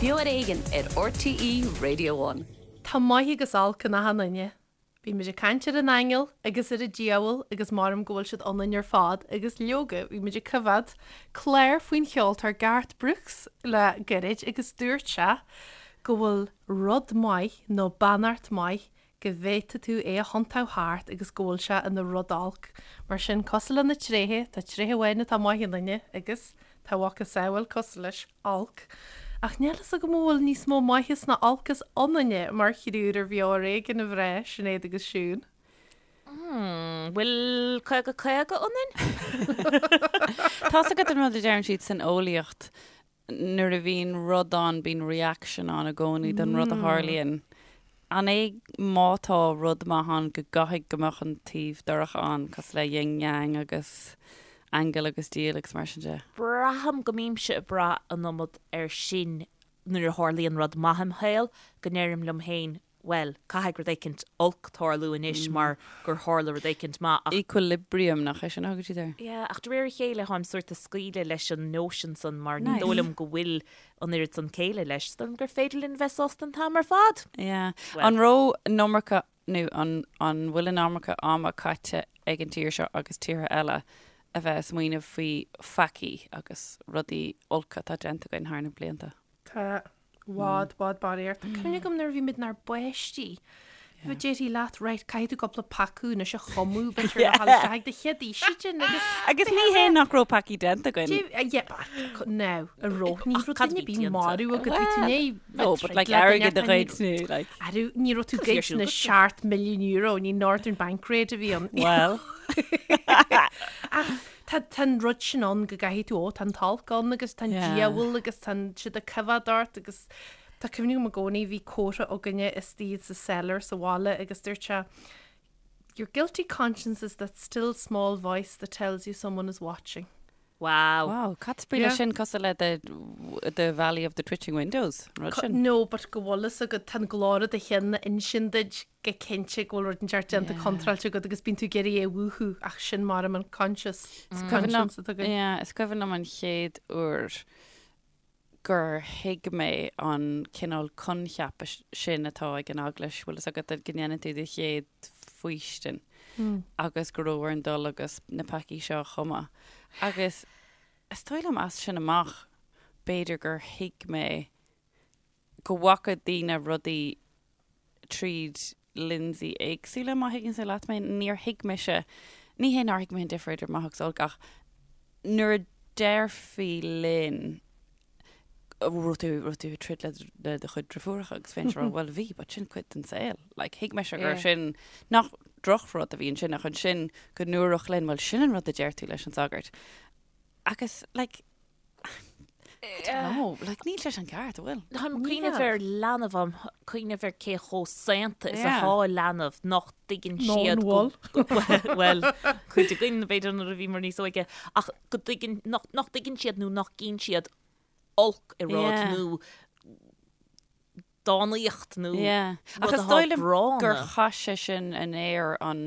Beo ar Éigean ar RTÉ Radio One. Tá maith agus olc in achan duine. Bhí muid ag caint ar an aingeal agus ar an diabhal agus maram go bhfuil siad ionainn ar fad agus leoga bhí muid ag coimhéad clár faoin cheoltóir Garth Brooks le gairid agus dúirt sé go bhfuil rud maith nó beannacht maith go bhféadfaidh tú é a thiontú thart agus go bhfuil sé ina rud olc. Mar sin, cosúil le na tréithe, tá tréith amháin atá maith i nduine agus tá a mhacasamhail cosúil leis, olc. Ach níl fhios agam an bhfuil níos mó maitheas ná olcas ionainne mar thriúr ar Bheo ar Éigean, a mhná, Sinéad agus Siún. Hmm, bhfuil 50 50 ionainn? Tá's agat an rud a deireann siad san eolaíocht, nuair a bhíonn rud ann, bíonn reaction ann i gcónaí don rud a tharlaíonn. An é má tá rud maith ann go gcaithfidh go mbeadh an taobh dorcha ann, cosúil le yin yang agus aingeal agus diabhal agus mar sin de? Braithim go mbímse ag brath an iomad air sin nuair a tharlaíonn rud maith im shaol, go ndeirim liom féin, bhuel, caithfidh rud éicint olc tarlú anois mar gur tharla rud éicint maith ach. Equilibrium, nach é sin a thugann siad air? Yeah, ach de réir a chéile táim sort ag scaoileadh leis an notion san mar ní dóigh liom go bhfuil an oiread san céille leis. Is dóigh liom gur féidir linn bheith sásta an t-am ar fad! Yeah. An raibh an iomarca, nó an an bhfuil an iomarca ama caite ag an tír seo agus tíortha eile a bheith ag smaoineamh faoi pheacaí agus rudaí olca atá déanta againn thar na blianta? Tá i bhfad, bhfad barraíocht. Tá cuimhne agam nuair a bhí muid inár bpáistí. Bhí déarfaí leat, right, caithfidh tú cúpla peaca anois a chumadh, b'fhéidir le dhul isteach ag do chéad fhaoistin agus. Agus ní hé nach raibh peacaí déanta againn. Yeah, but now, a raibh, ní raibh duine ar bith marbh agat, bhí tú i ndiaidh No, but like airgead a ghoid nó like. Arú, ní raibh tú goid na 7 milliún euro, ní Northern Bank raid a bhí ann. Well. Ach Tá tá an rud sin ann go gcaithfidh tú, ó, tá an t-olc ann agus tá an diabhal agus tá siad ag coimhéad ort agus tá cuimhne agam i gcónaí bhí comhartha againne istigh sa cellar sa bhaile agus dúirt sé Your guilty conscience is that still small voice that tells you someone is watching. Wow. Wow, cad is brí leis sin cosúil le the the Valley of the Twitching Windows, an rud sin? No, but go bhfuil fhios agat, tá an glór i do cheann ag insint duit go cinnte go bhfuil rud inteacht déanta contráilte agat agus bíonn tú ag iarraidh é a mhúchadh ach sin mar an conscious conscience atá againn. Yeah, is cuimhin liom an chéad uair gur thuig mé an cineál coincheapa sin atá ag an eaglais, bhfuil fhios agat go ndéanann tú do chéad faoistin agus go raibh orainn dul agus na peacaí seo a chumadh. Agus is dóigh liom as sin amach b'fhéidir gur thuig mé go bhfaca daoine rudaí tríd lionsaí éagsúla, má thuigeann tú leat mé. Níor thuig mise, ní hé nár thuig mé an difear idir maith agus olc ach nuair a déarfaí linn raibh tú, raibh tú ag troid le le do chuid driofúracha agus bheinnse ag rá bhuel bhí, but sin cuid den saol. Like thuig mise gur sin nach drochrud a bhí ansin ach ansin go ndúradh linn bhuel sin an rud a deir tú leis an sagart. Agus like I don't know, like níl sé sin ceart, an bhfuil? Táim ag cuimhneamh ar leanbh, táim ag cuimhneamh ar cé chomh saonta is atá leanbh nach dtuigeann siad go bhuel, cuid againn b'fhéidir nuair a bhíomar níos óige, ach go dtuigeann, nach dtuigeann siad nó nach gcíonn siad olc i rud nó dánaíocht nó Ach is dóigh liom gur chaith sé sin in aer an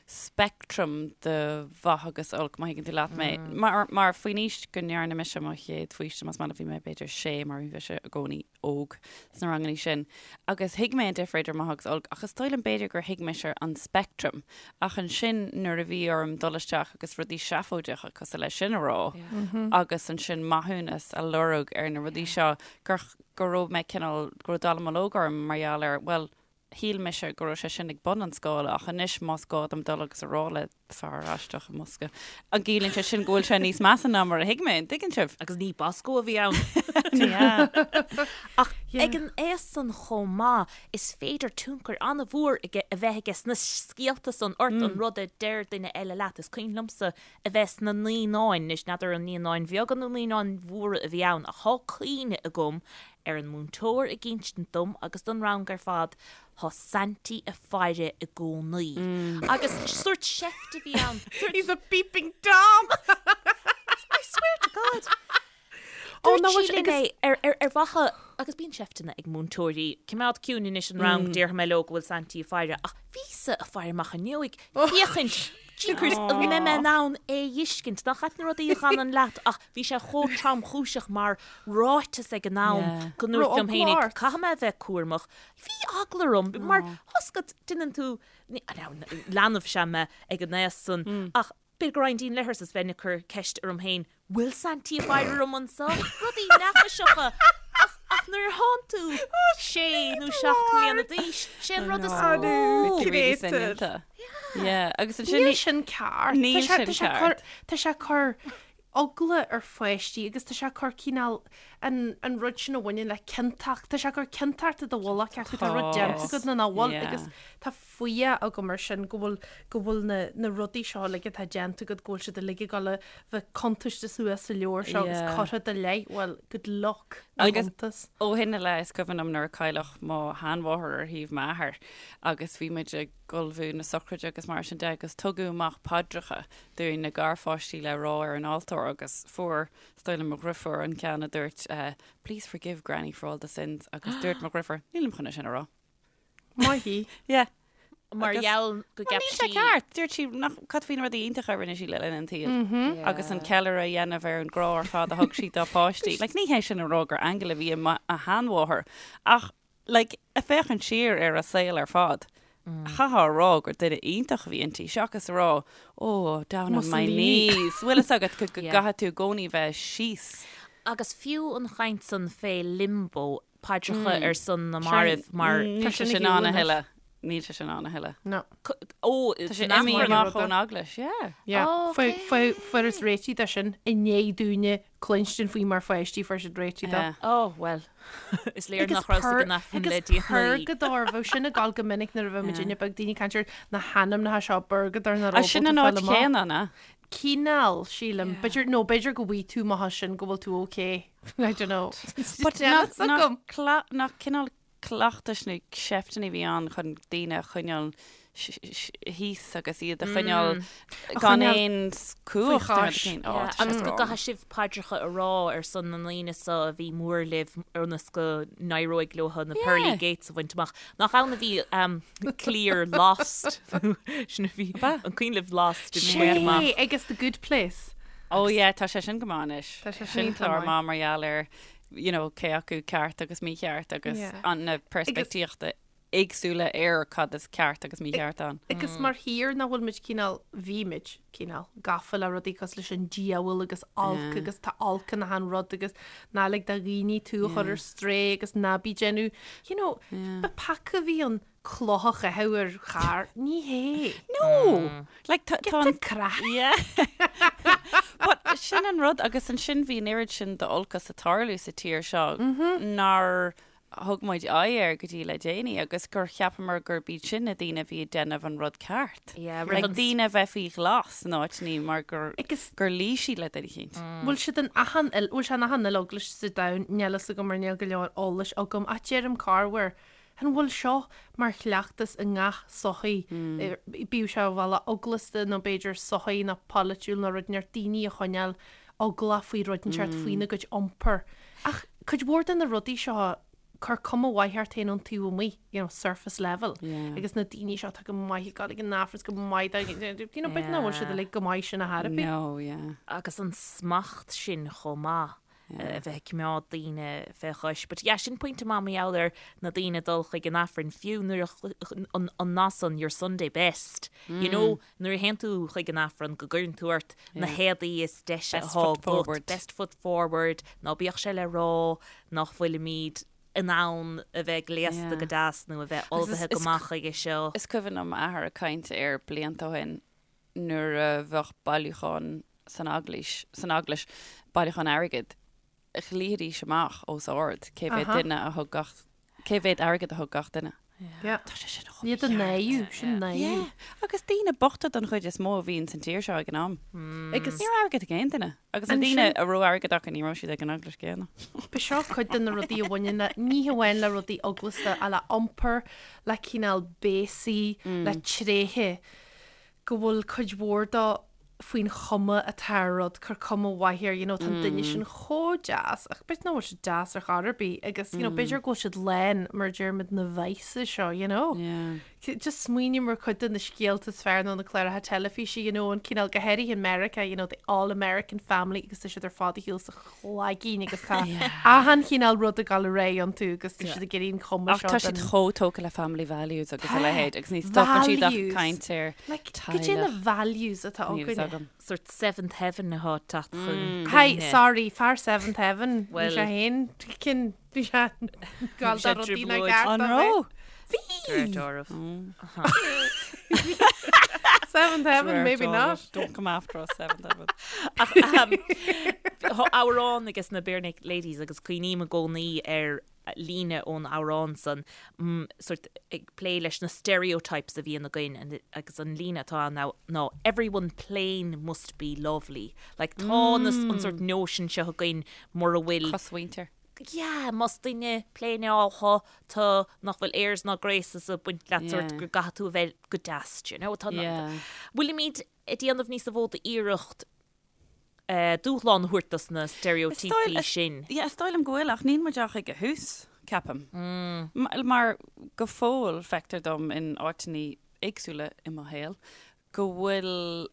speictream de mhaith agus olc, má thuigeann tú leat mé. Mar, mar faoin aois go ndearna mise mo chéad faoistin, más maith leat, bhí mé b'fhéidir sé mar bhí mise i gcónaí óg sna rangannaí sin. Agus thuig mé an difear idir maith agus olc, ach is dóigh liom b'fhéidir gur thuig mise an speictream. Ach ansin nuair a bhí orm dul isteach agus rudaí seafóideacha cosúil leis sin a rá agus ansin maithiúnas a lorg ar na rudaí seo gur go raibh mé cineál, go raibh dallamullóg orm mar gheall ar, bhuel, shíl mise go raibh sé sin ag bun an scála ach anois más gá dom dul agus a rá le fear aisteach i mbosca, an gciallaíonn sé sin go bhfuil sé níos measa ná mar a thuig mé, an dtuigeann sibh? Agus ní Bosco a bhí ann. Ní hea. Ach ag an aois san chomh maith, is féidir tionchar an-mhór a bheith aige sna scéalta san ort, an rud a deir duine eile leat. Is cuimhin liomsa a bheith sna naíonáin, anois n'fheadar an naíonáin bheaga nó naíonáin mhóra a bhí ann, ach thá cuimhne agam ar an múinteoir ag insint dom agus don rang ar fad, thá Saintí a' faire i gcónaí. Agus sórt seift a bhí ann, sórt. He's a peeping Tom! I swear to God! Dúirt sí linn é ar mhaithe, agus bíonn seifteanna ag múinteoirí, coimeád ciúin anois an rang, déarfaidh mé leo go bhfuil Saintí ag faire, ach bhíos-sa ag faire amach an fhuinneoig, féachaint. Jeepers, an mbeidh mé in ann é a fheiscint? Nach ait na rudaí a fhanann leat ach bhí sé chomh tromchúiseach mar ráiteas ag an am go ndúirt liom féinig, caithfidh mé a bheith cúramach. Bhí eagla orm mar tá 's agat, déanann tú, leanbh is ea mé ag an aos san ach b'fhéidir go raghainn dtí'n leithreas is bheinn ag cur ceist orm féin, bhfuil Saintí ag faire orm anso? Rudaí neafaiseacha ach ach nuair a thánn tú sé nó 7 mbliana d'aois, sé an rud is mó. Really soineanta. Yeah, agus ansin Níl sin ceart. Níl sin ceart. Tá sé ag cur eagla ar pháistí agus tá sé ag cur cineál an an rud sin a bhaineann le ciontacht, tá sé ag cur ciontacht i do mhullach acu, tá rud déanta agat nó nach bhfuil agus tá fuath agam ar sin go bhfuil go bhfuil na na rudaí seo uilig atá déanta agat go bhfuil siad uilig ag dul a bheith cuntaiste suas sa leabhar seo agus curtha i do leith, well, good luck na Agus cuntas. ó shin i leith is cuimhin liom nuair a cailleadh mo sheanmháthair ar thaobh m'athar agus bhí muid ag ullmhú na sochraide agus mar sin de agus tugadh amach paidreacha dúinn na garpháistí le rá ar an altóir agus fuair is dóigh liom mo dhrifiúr an ceann a dúirt please forgive granny for all the sins agus dúirt mo dhrifiúr nílim chun é sin a rá. Maith í. Yeah. Mar gheall go gceap sí. Níl sé ceart. Dúirt sí nach cad faoi na rudaí iontacha a rinne sí le linn an tsaoil agus an ceiliúradh a dhéanamh ar an grá ar fad a thug sí dá páistí. Like, ní hé sin a rá gur aingeal a bhí i mo sheanmháthair ach like, ag féachaint siar ar a saol ar fad, chaithfeá a rá gur duine iontach a bhí inti seachas a rá, oh, down on my knees. Bhfuil fhios agat go gcaithfidh tú i gcónaí bheith síos. Agus fiú an chaint san fé limbo, paidreacha ar son na marbh mar. Níl sé sin ann a thuilleadh. Níl sé sin ann a thuilleadh. No. Ó, Tá sé imithe amach ón eaglais, yeah. Yeah. Fuarthas réitigh de sin i ndiaidh dúinne cluinstin faoi mar pháistí fuair siad réitigh dó. Ó, bhuel, is léir nach rabhas ag an Aifreann le déanaí. Purgadóir, bheadh sin ag gabháil go minic nuair a bheadh muidinne beag, daoine ag caint ar na hainmneacha seo, purgadóir nach raibh Sin an áit chéanna, an ea? Cineál, sílim. B'fhéidir, nó b'fhéidir go bhfaighidh tú amach as sin go bhfuil tú ok. I don't know. But nach cineál cleachtais nó seifteanna a bhí ann chun daoine a choinneáil thíos agus iad a choinneáil gan aon chumhacht. Agus go gcaithfidh sibh paidreacha a rá ar son na ndaoine so a bhí mór libh ionas go n-éireoidh leo na pearly gates a bhaint amach. Nach ann a bhí cliar Lost? Sin a bhí an cuimhin libh Lost i mí amach. Sé agus The Good Place. Oh yeah, tá sé sin go maith anois. Tá sé sin clár maith mar gheall ar you know, cé acu ceart agus mícheart agus an na peirspictíochta éagsúla ar cad is ceart agus mícheart ann. Agus mar thír nach bhfuil muid cineál, bhí muid cineál gafa le rudaí cosúil leis an diabhal agus olc agus tá olc in achan rud agus ná lig do dhaoine tú a chur ar strae agus ná bí déanamh, you know, ba peaca a bhí ann cloch a chaitheamh ar charr, ní hé. No! Like, tá Get an the craic. Yeah. But sin an rud agus ansin bhí an oiread sin d'olcas ag tarlú sa tír seo nár thug muid aghaidh air go dtí le déanaí agus gur cheapamar gurb iad sin na daoine a bhí ag déanamh an rud ceart. Yeah, roimh Like, daoine a bheith faoi ghlas in áiteanna mar gur Agus gur luigh siad le duine eicínt. bhfuil siad in achan il, bhfuil sé in achan uile eaglais sa domhan, níl fhios agam mar níl go leor eolais agam ach deirim corruair An bhfuil seo mar chleachtas i ngach sochaí, bíodh sé ar bhealach eaglasta nó b'fhéidir sochaí nó polaitiúil nó rud inteacht, daoine a choinneáil eaglach faoi rud inteacht faoina gcuid iompair. Ach cuid mhór de na rudaí seo, cuir cuma mhaith ort féin ón taobh amuigh, you know, surface level. Agus na daoine seo atá go maith ag dul ag an Aifreann, go maith dá, you know, b'fhéidir nach bhfuil siad uilig go maith sin ar chor ar bith. No, yeah. Agus an smacht sin chomh maith. a bheith ag coimeád daoine fé chois. But yeah, sin pointe maith mar gheall ar na daoine ag dul chuig an Aifreann, fiú nuair a, an, an nath san, your Sunday best, you know, nuair a théann tú chuig an Aifreann go gcuireann tú ort na héadaí is deise Best atá foot agat, forward. best foot forward, ná bíodh sé le rá nach bhfuilimid in ann a bheith gléasta Yeah. go deas nó a bheith Agus is- ullmhaithe go is- maith chuige seo. Is cuimhin liom m'athair ag caint air blianta ó shin nuair a bheadh bailiúchán san eaglais, san eaglais, bailiúchán airgid, ghlaofaidís amach os ard cé mhéad duine a thug gach, cé mhéad airgid a thug gach duine. Yeah. Tá sé sin chomh Iad a náiriú, sin náiriú. Yeah. Agus daoine bochta don chuid is mó a bhíonn san tír seo ag an am. Agus Ní raibh airgead ag aon duine. Agus na daoine a raibh airgead acu ní raibh siad ag an eaglais céanna. Ba seo cuid de na rudaí a bhaineann le, ní hamháin le rudaí eaglasta, ach le iompar, le cineál béasaí, le tréithe. go bhfuil cuid mhór dó faoin chuma atá ar rud, cuir cuma mhaith air, you know, tá an duine sin chomh deas, ach b'fhéidir nach bhfuil siad deas ar chor ar bith agus, you know, b'fhéidir go bhfuil siad lán, mar a deirimid, na vices seo, you know. Yeah. Just smaoiním ar cuid de na scéalta is fearr nó na cláracha teilifíse, you know, an cineál, go háirithe i Meiriceá, you know, the all American family agus tá siad ar fad ar shiúl sa chlaigín agus tá achan chineál rud ag dul ar aghaidh iontu agus tá siad ag iarraidh an chuma Ach seo tá siad den- chomh tógtha le family values agus a leithéid agus ní stopann siad ach Values. caint ar Like, goidé na teaghlach. values atá Níl fhios againne. agam. Sort seventh heaven atá ag teacht chun Hi, cuimhne. sorry, fear seventh heaven, bhí Well- sé féin, cinn, bhí sé gal sé dá rudaí nach trioblóid. gceart An dó raibh? bheith. Bhí! Dórbh. Seventh heaven, maybe not. Don't come after us, seventh heaven. Ach tá amhrán ages na Barenaked Ladies agus cuimhním i gcónaí ar líne ón amhrán san, sort ag plé leis na stereotypes a bhíonn againn agus an líne atá ann ná everyone plain must be lovely. Like tá na, an sort notion seo againn mura bhfuil Cosmhuintir. Yeah, más duine pléineáltha tú nach bhfuil airs ná graces ag baint leat sort Yeah. go gcaithfidh tú a bheith go deas, do you know? Tá na- Yeah. Bhfuilimid ag déanamh níos mó d'iarracht eh, dúshlán a thabhairt dos na steiréitíopaí sin. Yeah, is dóigh liom go bhfuil ach níl muid ach ag a thús, ceapaim. Mm. Mar go fóill feictear dom in áiteanna éagsúla i mo shaol go bhfuil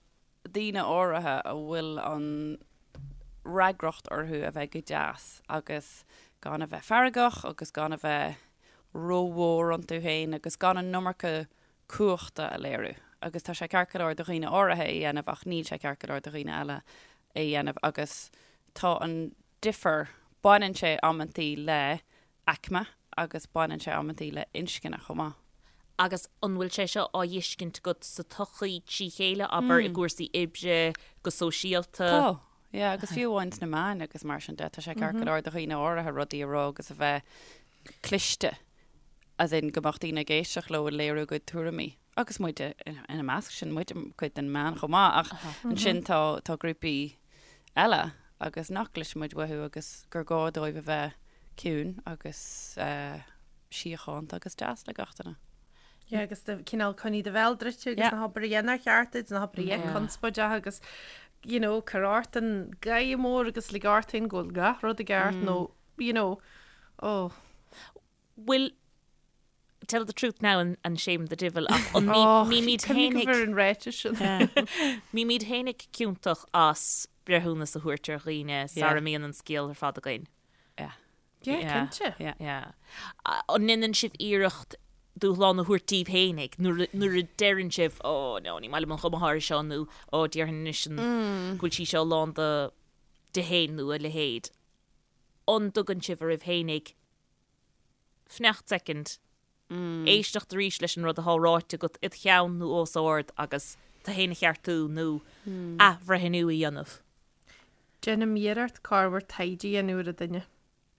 daoine áirithe a bhfuil an fhreagracht orthu a bheith go deas agus gan a bheith feargach agus gan a bheith rómhór iontu féin agus gan an iomarca cumhachta a léiriú. Agus tá sé ceart go leor do dhaoine áirithe é a dhéanamh ach níl sé ceart go leor do dhaoine eile é a dhéanamh agus tá an difear, baineann sé amantaí le aicme agus baineann sé amantaí le inscne chomh maith. Agus an bhfuil sé seo á fheiscint agat sa tsochaí trí chéile, abair, i gcúrsaí oibre, go sóisialta? Tá, yeah, agus fiú amháin sna meáin agus mar sin de, tá sé ceart go leor do dhaoine áirithe rudaí a rá agus a bheith cliste, as in go mbeadh daoine ag éisteacht leo ag léiriú a gcuid tuairimí. Agus muid ina measc sin, muid cuid den meán chomh maith, ach ansin tá tá grúpaí eile agus nach gcloiseann muid uathu agus gur gá dóibh a bheith ciúin agus síochánta agus deas le gach duine. Yeah, agus do cineál coinnigh do bhéal druidte agus Yeah. ná habair a dhath nár cheart duit, ná habair a dhath Yeah. conspóideach agus you know, cuir ort an gáire mór agus lig ort féin go bhfuil gach rud i gceart nó you know, oh. Bhfuil tell the truth now and, and shame the divil ach an Oh, mbímid cuimhnigh fhéinig ar an ráiteas sin. mbímid fhéinig ciontach as breithiúnas a thabhairt ar dhaoine sara mbíonn an scéal ar fad againn. Yeah. Yeah, Yeah. cinnte. Yeah. Yeah. An ndéanann sibh iarracht dúshlán a thabhairt daoibh fhéinig nuair a- nuair a deireann sibh ó no ní maith liom an chuma atá air seo nó ó déarfainn anois an go bhfuil sí seo lán de di féin nó a leithéid. An dtugann sibh oraibh fhéinig fanacht soicind, éisteacht arís leis an rud atá ráite agat id cheann nó os ard agus tú féin a cheartú nó athbhreithniú a dhéanamh. Déanaim iarracht corruair taighde a dhéanamh ar an duine.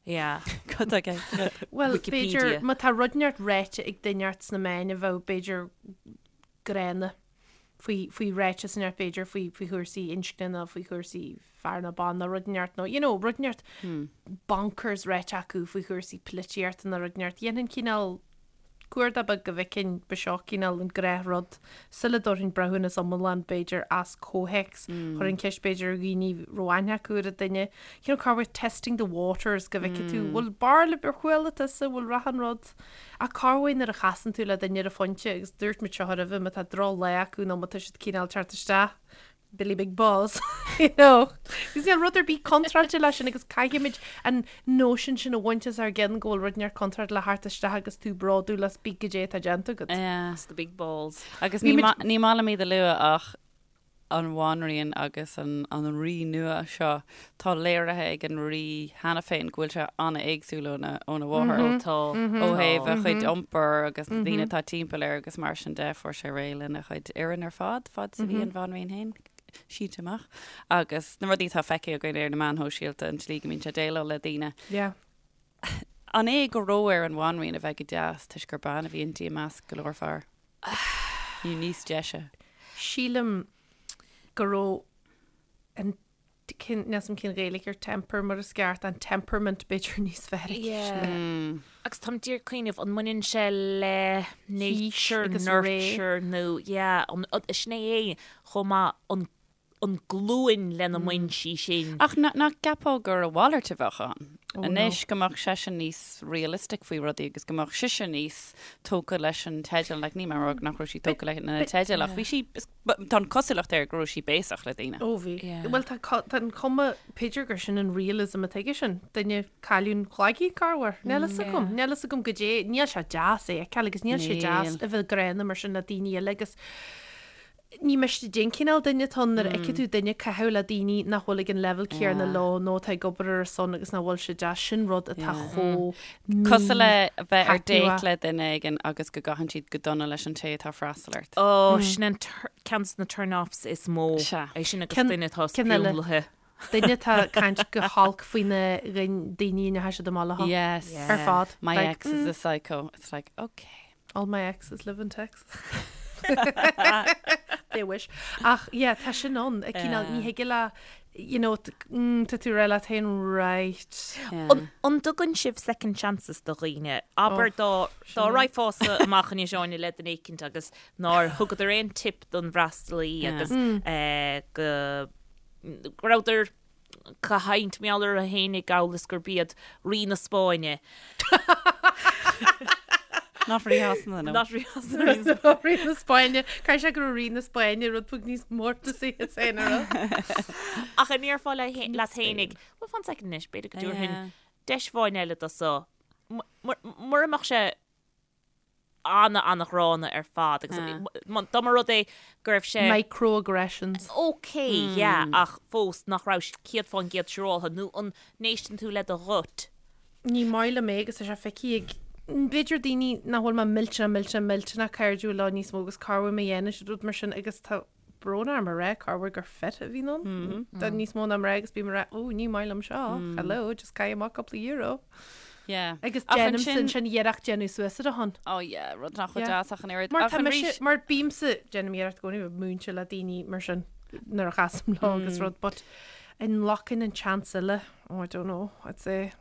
Yeah. Cad é ceart? Bhuel, Wikipedia. b'fhéidir, má tá rud inteacht ráite ag duine inteacht sna meáin a bheadh, b'fhéidir, gránna faoi, faoi ráiteas inteacht, b'fhéidir, faoi, faoi chúrsaí inscne nó faoi chúrsaí fear nó ban nó rud inteacht nó, you know, rud inteacht bonkers ráite acu faoi chúrsaí polaitíochta nó rud inteacht. Dhéanfainn cineál cuardach beag go bhfeicfinn ba seo cineál an gnáthrud sula dtabharfainn breithiúnas iomlán b'fhéidir as comhthéacs. Chuirfinn ceist b'fhéidir ar dhaoine a raibh aithne acu ar an duine. You know, corruair testing the waters go bhfeicfidh tú bhfuil barr ar chuala tusa, bhfuil rath an rud. Ach corruair nuair a chasann tú le duine ar an phointe agus dúirt muid seo roimhe má tá drochlá acu nó má tá siad cineál teacht isteach Billy Big Balls, you know. Agus níl rud ar bith contráilte leis sin agus caithfimid an nóisean sin a bhaint as ár gceann go bhfuil rud inteacht contráilte le theacht isteach agus tú bródúil as bith goidé atá déanta agat. Yeah. It's the big balls. Agus ní ma- ní maith liom iad a lua ach an bhanríon agus an an rí nua seo, tá léirithe ag an rí cheana féin go bhfuil sé an-éagsúil óna óna mháthair. Ó tá. Ó thaobh a chuid iompair agus na daoine atá timpeall air agus mar sin de, fuair sé réidh lena chuid fhoireann ar fad, fad is a bhí an bhanríon féin sínte amach. Agus na rudaí atá feicthe againn ar na meáin shóisialta, an tslí go mbíonn sé ag déileáil le daoine. Yeah. An é go raibh ar an bhanríon a bheith go deas toisc gur bean a bhí inti i measc go leor fear? Nó níos deise? Sílim go raibh an cén, níl 's a'm cén Ghaeilge ar temper mar is ceart, an temperament b'fhéidir níos fearr aici. Yeah. Agus táim díreach ag cuimhneamh, an mbaineann sé le nature, agus ré. nurture nó, yeah, an, sin é é chomh maith, an. an glúin lena mbain sí sin. Ach nach gceapfá gur a mhalairt a bheadh ann anois, go mbeadh seisean níos realistic faoi rudaí agus go mbeadh sise níos tógtha leis an teideal, like níl mé ag rá nach raibh sí tógtha leis na teidil ach bhí sí, tá an cosúlacht air go raibh sí béasach le daoine. Ó bhí. Bhuel tá tá an chuma, b'fhéidir gur sin an realism atá aige sin, duine cailliún cloigne corruair. Níl fhios agam, níl fhios agam goidé, níl sé deas é a fheiceáil agus níl sé deas a bheith gránna mar sin le daoine eile agus Ní miste cén cineál duine atá ann nuair a fheiceann tú duine ag caitheamh le daoine nach bhfuil ag an leibhéal céanna leo nó atá ag obair ar a son agus nach bhfuil sé deas, sin rud atá chomh Cosúil le bheith ar date le duine éigin agus go gcaitheann siad go dona leis an té atá ag freastal ort. Ó, sin an ceann de na turn-offs is mó. Sea. É sin agus duine atá sprionlaithe. Duine atá ag caint go holc faoi na daoine a ndeachaigh siad amach leo. Yes. Ar fad. My ex is a psycho. It's like, okay. All my exes live in Texas. They wish. Ach yeah, tá sin ann. A cineál, ní thig le, you know, mm, tá tú rá leat féin, right. An, an dtugann sibh second chances do dhaoine? Abair dá, dá raghfása amach anois Áine le duine éicint agus nár thugadar aon tip don bhfreastalaí agus eh, go, go rabhadar ag caint mar gheall orthu fhéinig amhail is gurb iad Rí na Spáinne. Not Rí Shasana, no. Not Rí Shasana, Rí na Spáinne. Rí na Spáinne. Caithfidh sé go raibh Rí na Spáinne rud beag níos mórtasaí as féin a rá. Ach an ndéarfá leat fhéinig, well fan second anois, b'fhéidir go dtabharfainn deis amháin eile do so. Mura mbeadh sé ana-ana-ghránna ar fad agus dá mba rud é go raibh sé. Microaggressions. Ok, yeah, ach fós nach raibh sé 100% siúráltha nó an n-éisteann tú le do gut? Ní maith liom é agus tá sé feicthe ag b'fhéidir daoine nach bhfuil mé millteanach millteanach millteanach cairdiúil leo níos mó agus corruair má dhéanann siad rud mar sin agus tá brón orm a rá corruair gur fit a bhíonn ann. Tá níos mó ná mná agus bím ag rá, ó ní maith liom seo, hello, just caith amach cúpla euro. Yeah. Agus déanaimse ansin iarracht déanamh suas ar a shon. Oh yeah, rud nach bhfuil deas ach an oiread. Mar tá mise, mar bímse, déanaim iarracht i gcónaí bheith múinte le daoine mar sin nuair a chasaim leo agus rud, but an nglacfainn an chance eile, oh I don't know, I'd say.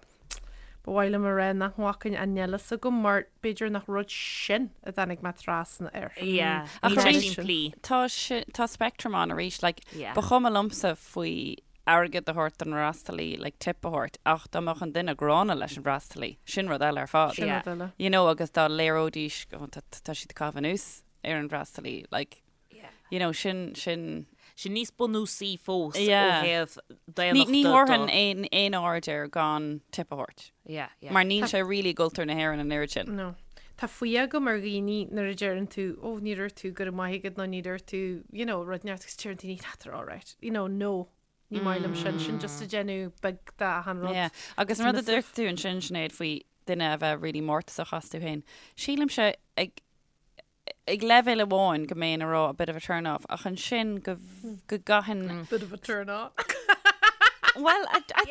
Ba mhaith liom a rá nach nglacfainn ach níl a fhios agam mar b'fhéidir nach rud sin a dtáinig mé trasna air. Yeah, Ach níl sé arís, simplí. tá si- tá spectrum ann arís, like, Yeah. ba chuma liomsa faoi airgead a thabhairt don fhreastalaí, like, tip a thabhairt, ach dá mbeadh an duine gránna leis an bhfreastalaí, sin rud eile ar fad. Sin Yeah. rud eile. You know, agus dá léireoidís, oh, tá tá siad ag caitheamh anuas ar an bhfreastalaí, like, You know, sin, sin. Sin níos bunúsaí fós ó Yeah. thaobh Ní, daonnachta ní do. thabharfainn aon, aon aird air gan tip a thabhairt. Yeah, yeah. Mar níl sé really i gcultúr na hÉireann an oiread sin. No. Tá fuath agam ar dhaoine nuair a deireann tú, oh, ní dúirt tú go raibh maith agat nó ní dúirt tú, you know, rud inteacht agus deireann daoine, ah, they're all right. You know, no. Ní maith liom sin. Sin just ag déanamh beag de achan rud. Yeah. Agus an rud a dúirt tú ansin, Sinéad, faoi duine a bheith really mórtasach astu féin, sílimse ag, ag leibhéal amháin go mbeinn ag rá a bit of a turn off ach ansin go go gcaitheann Bit of a turn off. Well, I, I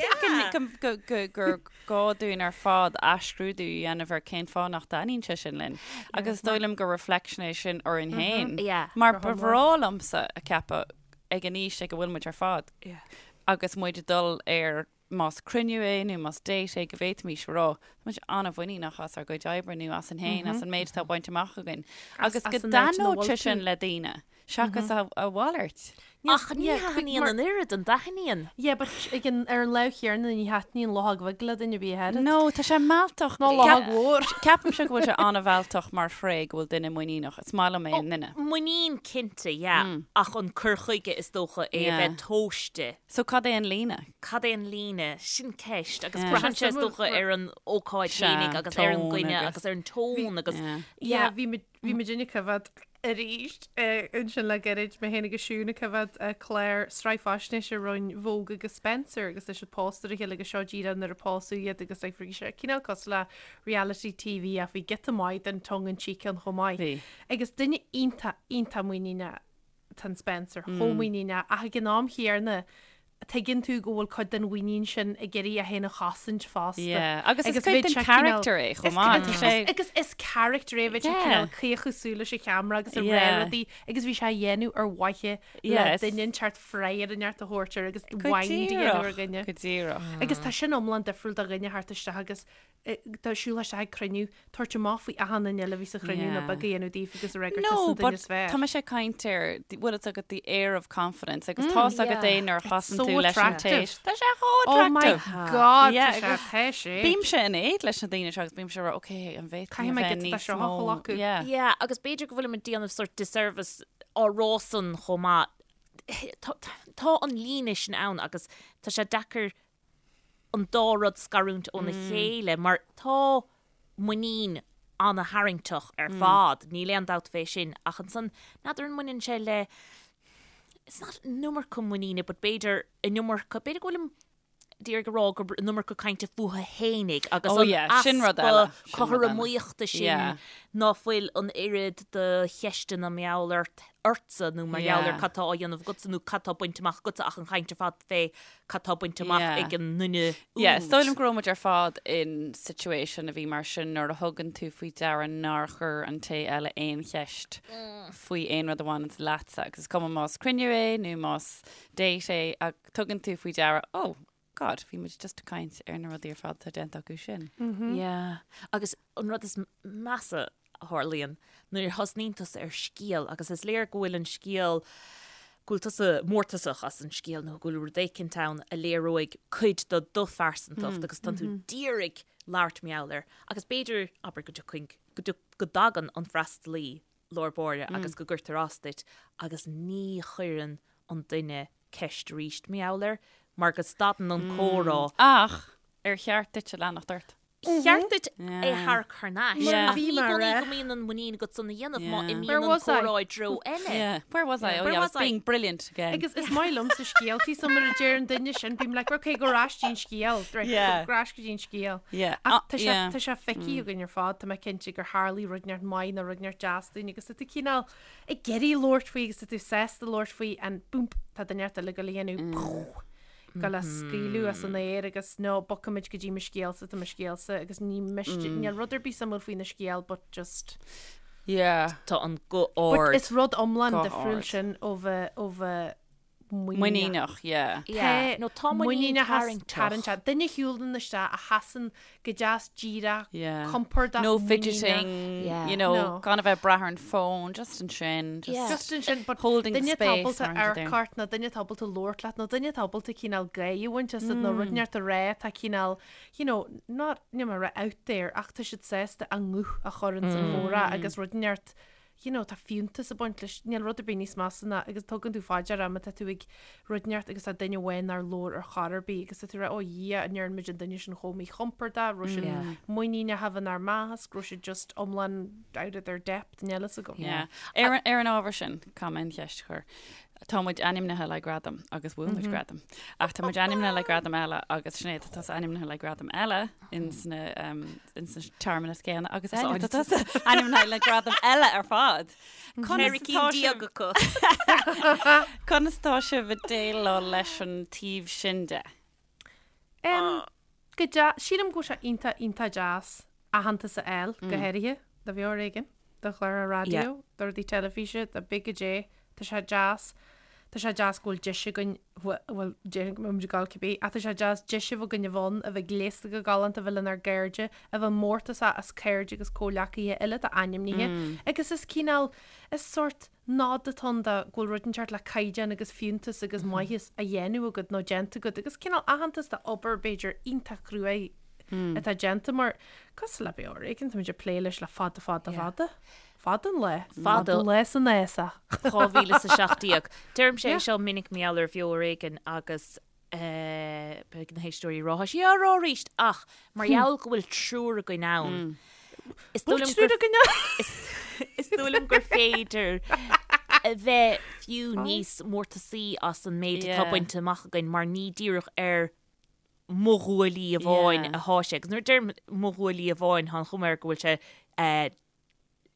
think go, go, go, gur gá dúinn ar fad athscrúdú a dhéanamh ar cén fáth nach dtaitníonn sé sin linn. Agus is dóigh liom gur reflection é sin orainn féin. Yeah. Mar ba bhreá liomsa a cheapadh ag an aois ag a bhfuil muid ar fad agus muid ag dul ar más cruinniú é nó más date é go bhféadfaimis a rá, tá muid an-mhuiníneach as ár gcuid oibre nó asainn féin, as an méid atá bainte amach againn. Agus go as an áit ina dtaitneodh bhfuil sé tú. sin le daoine, seachas a a mhalairt. Ach ní thaitníonn an oiread, an dtaitníonn? Yeah, but ag an, ar an lámh chéanna ní thaitníonn luchóg bheag le duine ar bith a oiread. No, tá sé mealltach. Ná luchóg mhór. Ceapaimse go bhfuil sé an-mhealltach mar thréith go bhfuil duine muiníneach. Is maith liom é i nduine. Muinín cinnte, yeah, ach an cur chuige is dócha é a Yeah. bheith tomhaiste. So cad é an líne? Cad é an líne? Sin ceist. Agus Yeah. braitheann sé is dócha ar an ócáid Sea, fhéinig agus ar an tón gcoinne agus- agus ar an tón agus Yeah. Yeah, bhí muid bhí muidinne ag coimhéad arís ansin le gairid, mé féin agus Siún ag coimhéad clár sraith faisnéise roinn Vogue agus Spencer agus tá siad pósta ar a chéile agus seo díreach nuair a pósadh iad agus like bhí sé cineál cosúil le reality TV ach bhí giota maith den tongue in cheek ann chomh maith. Bhí. Agus duine iontach, iontach muiníneach Tá an Spencer chomh muiníneach ach ag an am chéanna. tuigeann tú go bhfuil cuid den mhuinín sin ag iarraidh é féin a chosaint fosta. Yeah, agus is cuid den character é chomh maith. Tá sé. Agus is character é, bheadh sé cineál caochadh súl leis an cheamara agus ag rá rudaí agus bhí sé á dhéanamh ar mhaithe le duine inteacht freagra inteacht a thabhairt air agus wind a dhéanamh ar dhuine. Go díreach. Agus tá sin iomlán difriúil do dhuine theacht isteach agus dá siúl isteach ag cruinniú, tabhairt amach faoi achan duine eile a bhí sa chruinniú nó beag a dhéanamh daofa agus a rá gur tusa an duine is fearr. Tá mise ag caint ar, bhfuil fhios agat the air of confidence agus tá's agat é nuair a chasann tú leis an té. Tá sé chomh Oh my attractive. God, tá sé, tá sé. Bímse in éad leis na daoine seo agus bímse ag rá, ok, an bhféadfainn Caithfidh mé a bheith giota de níos seo a mó. ghlacadh. Yeah. Yeah, agus b'fhéidir go bhfuilim ag déanamh sort disservice á rá san chomh maith. Tá tá an líne sin ann agus tá sé deacair an dá rud scarúint óna chéile mar tá muinín ana-tharraingteach ar fad, níl aon dabht fé sin, ach ansan n'fheadar an mbaineann sé le, it's not an iomarca muiníne but b'fhéidir an iomarca, b'fhéidir go bhfuilim d'iarraidh a rá gurb an iomarca cainte fúthu fhéinig agus Oh an yeah, sin rud eile, easpa sin rud eile. cothromaíochta sin Yeah. ná fuil an oiread de cheisteanna mar gheall ort, ortsa nó mar gheall ar Yeah. cad tá á dhéanamh agatsa nó cad tá bainte amach agatsa ach an chaint ar fad fé cad tá bainte amach Yeah. ag an nduine Yeah, is úd. dóigh liom go raibh muid ar fad in situation a bhí mar sin nuair a thugann tú faoi deara nár chuir an té eile aon cheist faoi aon rud a bhaineanns leatsa agus is cuma más cruinniú é nó más date é ach tugann tú faoi deara, oh, God, bhí muid just ag caint ar na rudaí ar fad atá déanta acu sin. Yeah. Agus an rud is measa a tharlaíonn nuair a thosnaíonn tusa ar scéal agus is léir go bhfuil an scéal, go bhfuil tusa mórtasach as an scéal nó go bhfuil rud éicint ann a léireoidh cuid de do phearsantacht agus tánn tú d'iarraidh labhairt mar gheall air agus b'fhéidir, abair go dtiocfainn, go go dtagann an freastalaí lár báire agus go gcuirtear as duit agus ní chuireann an duine ceist arís mar gheall air mar go stadann an comhrá. Ach ar cheart duit a leanacht ort? cheart duit é a tharrac thar n-ais. Ach ní i gcónaí go mbíonn an muinín agat san a dhéanamh má imíonn an comhrá i dtreo eile. Where was I? Oh yeah, I was being brilliant again. Agus is maith liomsa scéaltaí so nuair a deir an duine sin bím like ok go ar ais dtí'n scéal right go ar ais go dtí'n scéal. Ach tá sé tá sé feicthe againn ar fad tá mé cinnte gur tharlaigh rud inteacht maith nó rud inteacht deas dúinn agus tá tú cineál ag iarraidh labhairt faoi agus tá tú sásta labhairt faoi and boom tá duine inteacht eile ag goil a dhéanamh goil á scaoileadh as an aer agus no, bogfaimid go dtí mo scéalsa, tá mo scéalsa agus ní miste, níl rud ar bith suimiúil faoina scéal but just. Yeah. Tá an guth But ard. is rud iomlán Guth difriúil ard. sin ó bheith, ó bheith muiníneach. Muiníneach, yeah. Yeah. Tá No, tá muinín muiníneachas tarraingteach. tarraingteach. Duine a shiúlann isteach a sheasann go deas díreach, Yeah. compordach, No muiníneach. fidgeting, Yeah. you know, No. gan a bheith ag brath ar an phone, just ansin, just Yeah. Just ansin, but holding the duine space ábalta mar an amharc ort nó duine ábalta labhairt leat nó duine ábalta cineál gáire a bhaint asat nó rud inteacht a rá atá cineál, you know, not, níl mé ag rá out there ach tá siad sásta a nguth a chur ins an chomhrá agus rud inteacht you know, tá fiúntas ag baint leis, níl rud ar bith níos measa ná agus tugann tú fá deara má tá tú ag rud inteacht agus tá duine amháin nár labhair ar chor ar bith agus tá tú ag rá, oh Dhia, an ndearna muid an duine sin chomh míchompordach, raibh siad Yeah. muiníneach inár measc, raibh siad just iomlán out of their depth, níl fhios agam. Yeah. Ar an, ar an ábhar sin, caithfidh mé an cheist a chur. Tá muid ainmnithe le gradam agus bhuaigh muid gradam. Ach tá muid ainmnithe le gradam eile agus Sinéad tá tusa ainmnithe le gradam eile in sna, um, in sna searmanas céanna agus Áine tá tusa ainmnithe le gradam eile ar fad. Conas Ceithre atá cinn sibh- déag acu. Conas atá sibh ag déileáil leis an taobh sin de? Em, go dea, sílim go bhfuil sé iontach, iontach deas aitheantas a fháil, go háirithe do Bheo Ar Éigean, do chláir raidió, do rudaí teilifíse, do cibé goidé, tá sé deas, tá sé deas go bhfuil deis againn, bhuel, déarfainn go mbeidh muid ag gabháil cibé, ach tá sé deas deis a bheith againn a bheith ann, a bheith gléasta go galánta, a bheith lenár gcairde, a bheith mórtasach as cairde agus comhghleacaithe eile atá ainmnithe, agus is cineál, is sórt nod atá ann do go bhfuil rud inteacht le caighdeán agus fiúntas agus maitheas á dhéanamh agat nó déanta agat agus cineál aitheantas do obair b'fhéidir iontach cruaidh atá déanta mar cosúil le Beo Ar Éigean táimid ag plé leis le fada fada fada. Fada an lá. Fada an lá san fhásach. 2017. Deirimse é seo minic mar gheall ar Bheo Ar Éigean agus beidh na héisteoirí ag rá, tá sí á rá arís ach mar gheall go bhfuil triúr againn ann, is dóigh liom triúr againn ann? Is dóigh liom gur féidir a bheith fiú níos mórtasaí as an méid atá bainte amach againn mar ní díreach ar mo ghuaillí amháin atá sé. Agus nuair a deirim mo ghuaillí amháin, tá an chuma air go bhfuil sé.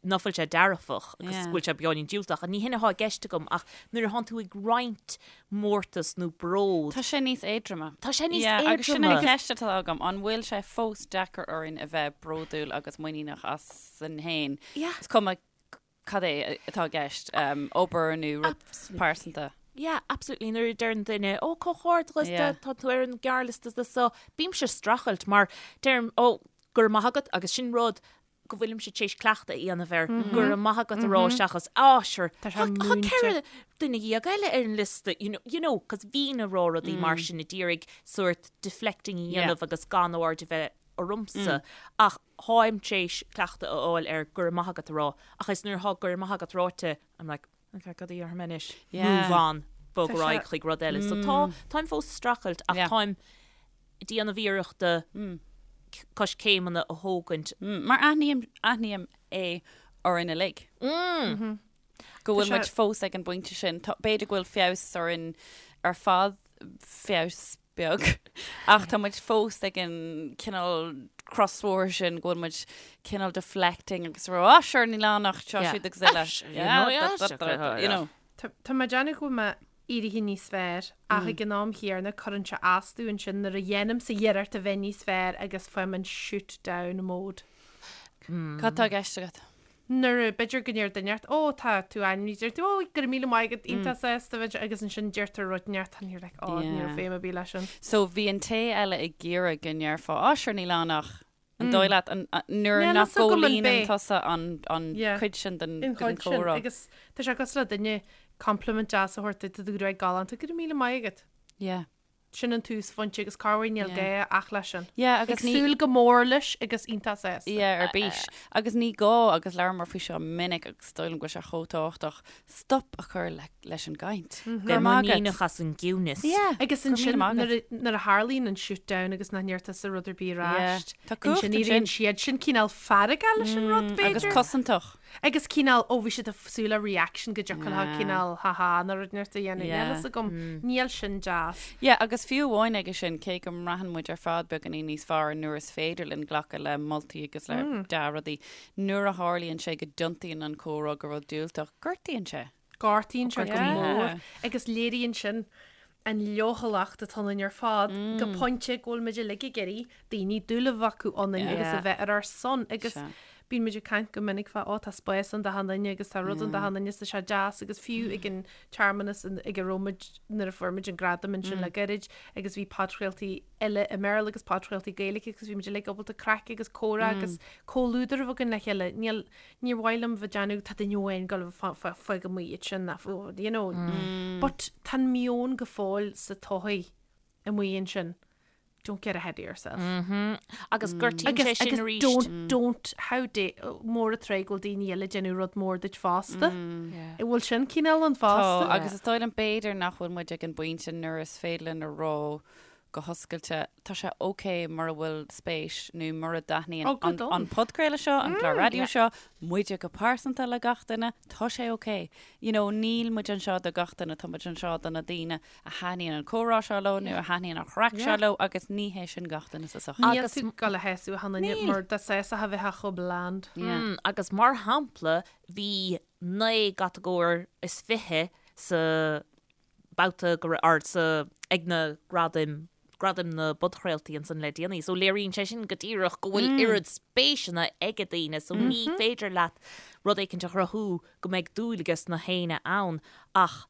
ná fuil sé dearfach agus go bhfuil sé beagáinín diúltach. Ní hin atá i gceist agam ach nuair atánn tú ag roinnt mórtas nó bród. Tá sé níos éadroime. Tá sé níos éadroime. Agus sin an cheist atá agam, an bhfuil sé fós deacair orainn a bheith bródúil agus muiníneach asainn féin? Is cuma cad é atá i gceist, obair nó rud pearsanta. Yeah, absolutely. Nuair a deireann duine, ó, comhghairdeas, tá tú ar an ghearrliosta do so, bímse ag streachailt mar deirim, ó, go raibh maith agat agus sin rud go bhfuilimse tar éis cleachtadh a dhéanamh air, go raibh maith agat a rá seachas, á, sure, tá 14 duine eile ar an liosta, you know, you know, cos bhínn ag rá rudaí mar sin ag iarraidh sort deflecting a dhéanamh agus gan aird a bheith ormsa. Ach táim tar éis cleachtadh a fháil ar go raibh maith agat a rá, ach is nuair atá go raibh maith agat ráite, I'm like, okay, cad a dhéarfaidh mé anois? Move on, bog ar aghaidh chuig rud eile. So tá, táim fós ag streachailt ach táim ag déanamh iarrachta coiscéimeanna a thógaint. Mar aithním, aithním é orainn uilig. Go bhfuil muid fós ag an bpointe sin. B'fhéidir go bhfuil feabhas orainn ar fad, feabhas beag, ach tá muid fós ag an cineál crosbhóthar sin go bhfuil muid cineál deflecting agus rá, ah sure níl ann ach seo siúd agus eile. You know. Tá mé ag déanamh go bhfuil mé éirithe níos fearr ach ag an am chéanna cuireann sé as domh ansin nuair a dhéanaimse iarracht a bheith níos fearr agus faighim an shoot down mode. Cad tá i gceist agat? Nuair a, b'fhéidir go ndeir duine ort, ó tá tú ainmnithe, deir tú, ó go raibh míle maith agat, iontach sásta bheith, agus ansin deirtear rud inteacht and you're like, ó ní raibh feidhm ar bith leis sin. So bhí an té eile ag iarraidh go ndéarfá, á sure níl ann ach, an dóigh leat, an, nuair nach gcomhlíonann tusa an, an cuid sin den, den chomhrá. Agus tá sé cosúil le duine compliment deas a thabhairt duit, tá do ghruaig galánta, go raibh míle maith agat. Yeah. Sin an túsphointe agus corruair níl gá ach leis sin. Yeah, agus Ag súil go mór leis agus iontach sásta. Yeah, ar bís. Agus ní gá, agus labhramar faoi seo minic agus is dóigh liom go bhfuil sé chomh tábhachtach, stop a chur leis an gcaint. Go raibh maith agat. Muiníneach as an gciúnas. Yeah, Agus ansin nuair a tharlaíonn an shoot down agus nach ndeir tusa rud ar bith ar ais, ansin éiríonn siad sin cineál feargach leis an rud, b'fhéidir. Agus cosantach. Agus cineál, ó bhí siad ag súil le reaction go dtiocfadh leo cineál ha ha nó rud inteacht a dhéanamh. Níl fhios agam, níl sin deas. Yeah, agus fiú amháin aige sin, cé go mbraitheann muid ar fad beagáinín níos fearr nuair is féidir linn glacadh le moltaí agus le dea-rudaí, nuair a tharlaíonn sé go dtiontaíonn an comhrá go rud diúltach, gortaíonn sé. Gortaíonn sé go mór agus léiríonn sin an leochaileacht atá ionainn ar fad go pointe go bhfuil muid uilig ag iarraidh daoine dúil a bheith acu ionainn agus a bheith ar ár son agus bíonn muid ag caint go minic fá ó tá spás ann d'achan duine agus tá rud ann d'achan duine is tá sé deas agus fiú ag an tsearmanas ag a raibh muid nuair a fuair muid an gradam ansin le gairid agus bhí podchraoltaí eile i mBéarla agus podchraoltaí Gaeilge agus bhí muid uilig ábalta craic agus comhrá agus comhluadar a bheith againn le chéile. Níl Níor mhaith liom bheith ag déanamh tá duine amháin ag dul fág amuigh iad sin ná you know. But tá an meon go fóill sa tsochaí amuigh ansin don't get ahead of yourself. Agus gortaíonn sé sin arís. Don't, don't, how dare, mór an trua go bhfuil daoine eile ag déanamh rud mór duit fosta. An bhfuil sin cineál ann fosta? Tá, agus is dóigh liom b'fhéidir nach bhfuil muid ag an bpointe nuair is féidir linn a rá go hoscailte, tá sé ok mura bhfuil spéis nó mura dtaitníonn Oh, good an, on. an podchraoladh seo, an clár raidió seo, muide go pearsanta le gach duine, tá sé ok. You know, níl muid anseo do gach duine, tá muid anseo do na daoine a thaitníonn an comhrá seo leo nó a thaitníonn an chraic seo Yeah. leo agus ní hé sin gach duine sa sochaí. Níl Agus- tú ag dul a shásamh achan duine Níl. mar dá sásófá bheifeá chomh bland. Yeah. Mm, agus mar shampla, bhí 9 gcatagóir is 20 sa babhta go raibh or sa ag na gradaim gradaim na bpodchraoltaí ansan le déanaí. So léiríonn sé sin go díreach go bhfuil oiread spéiseanna ag daoine so ní féidir leat rud éicint a chruthú go mbeidh dúil ages na héinne ann ach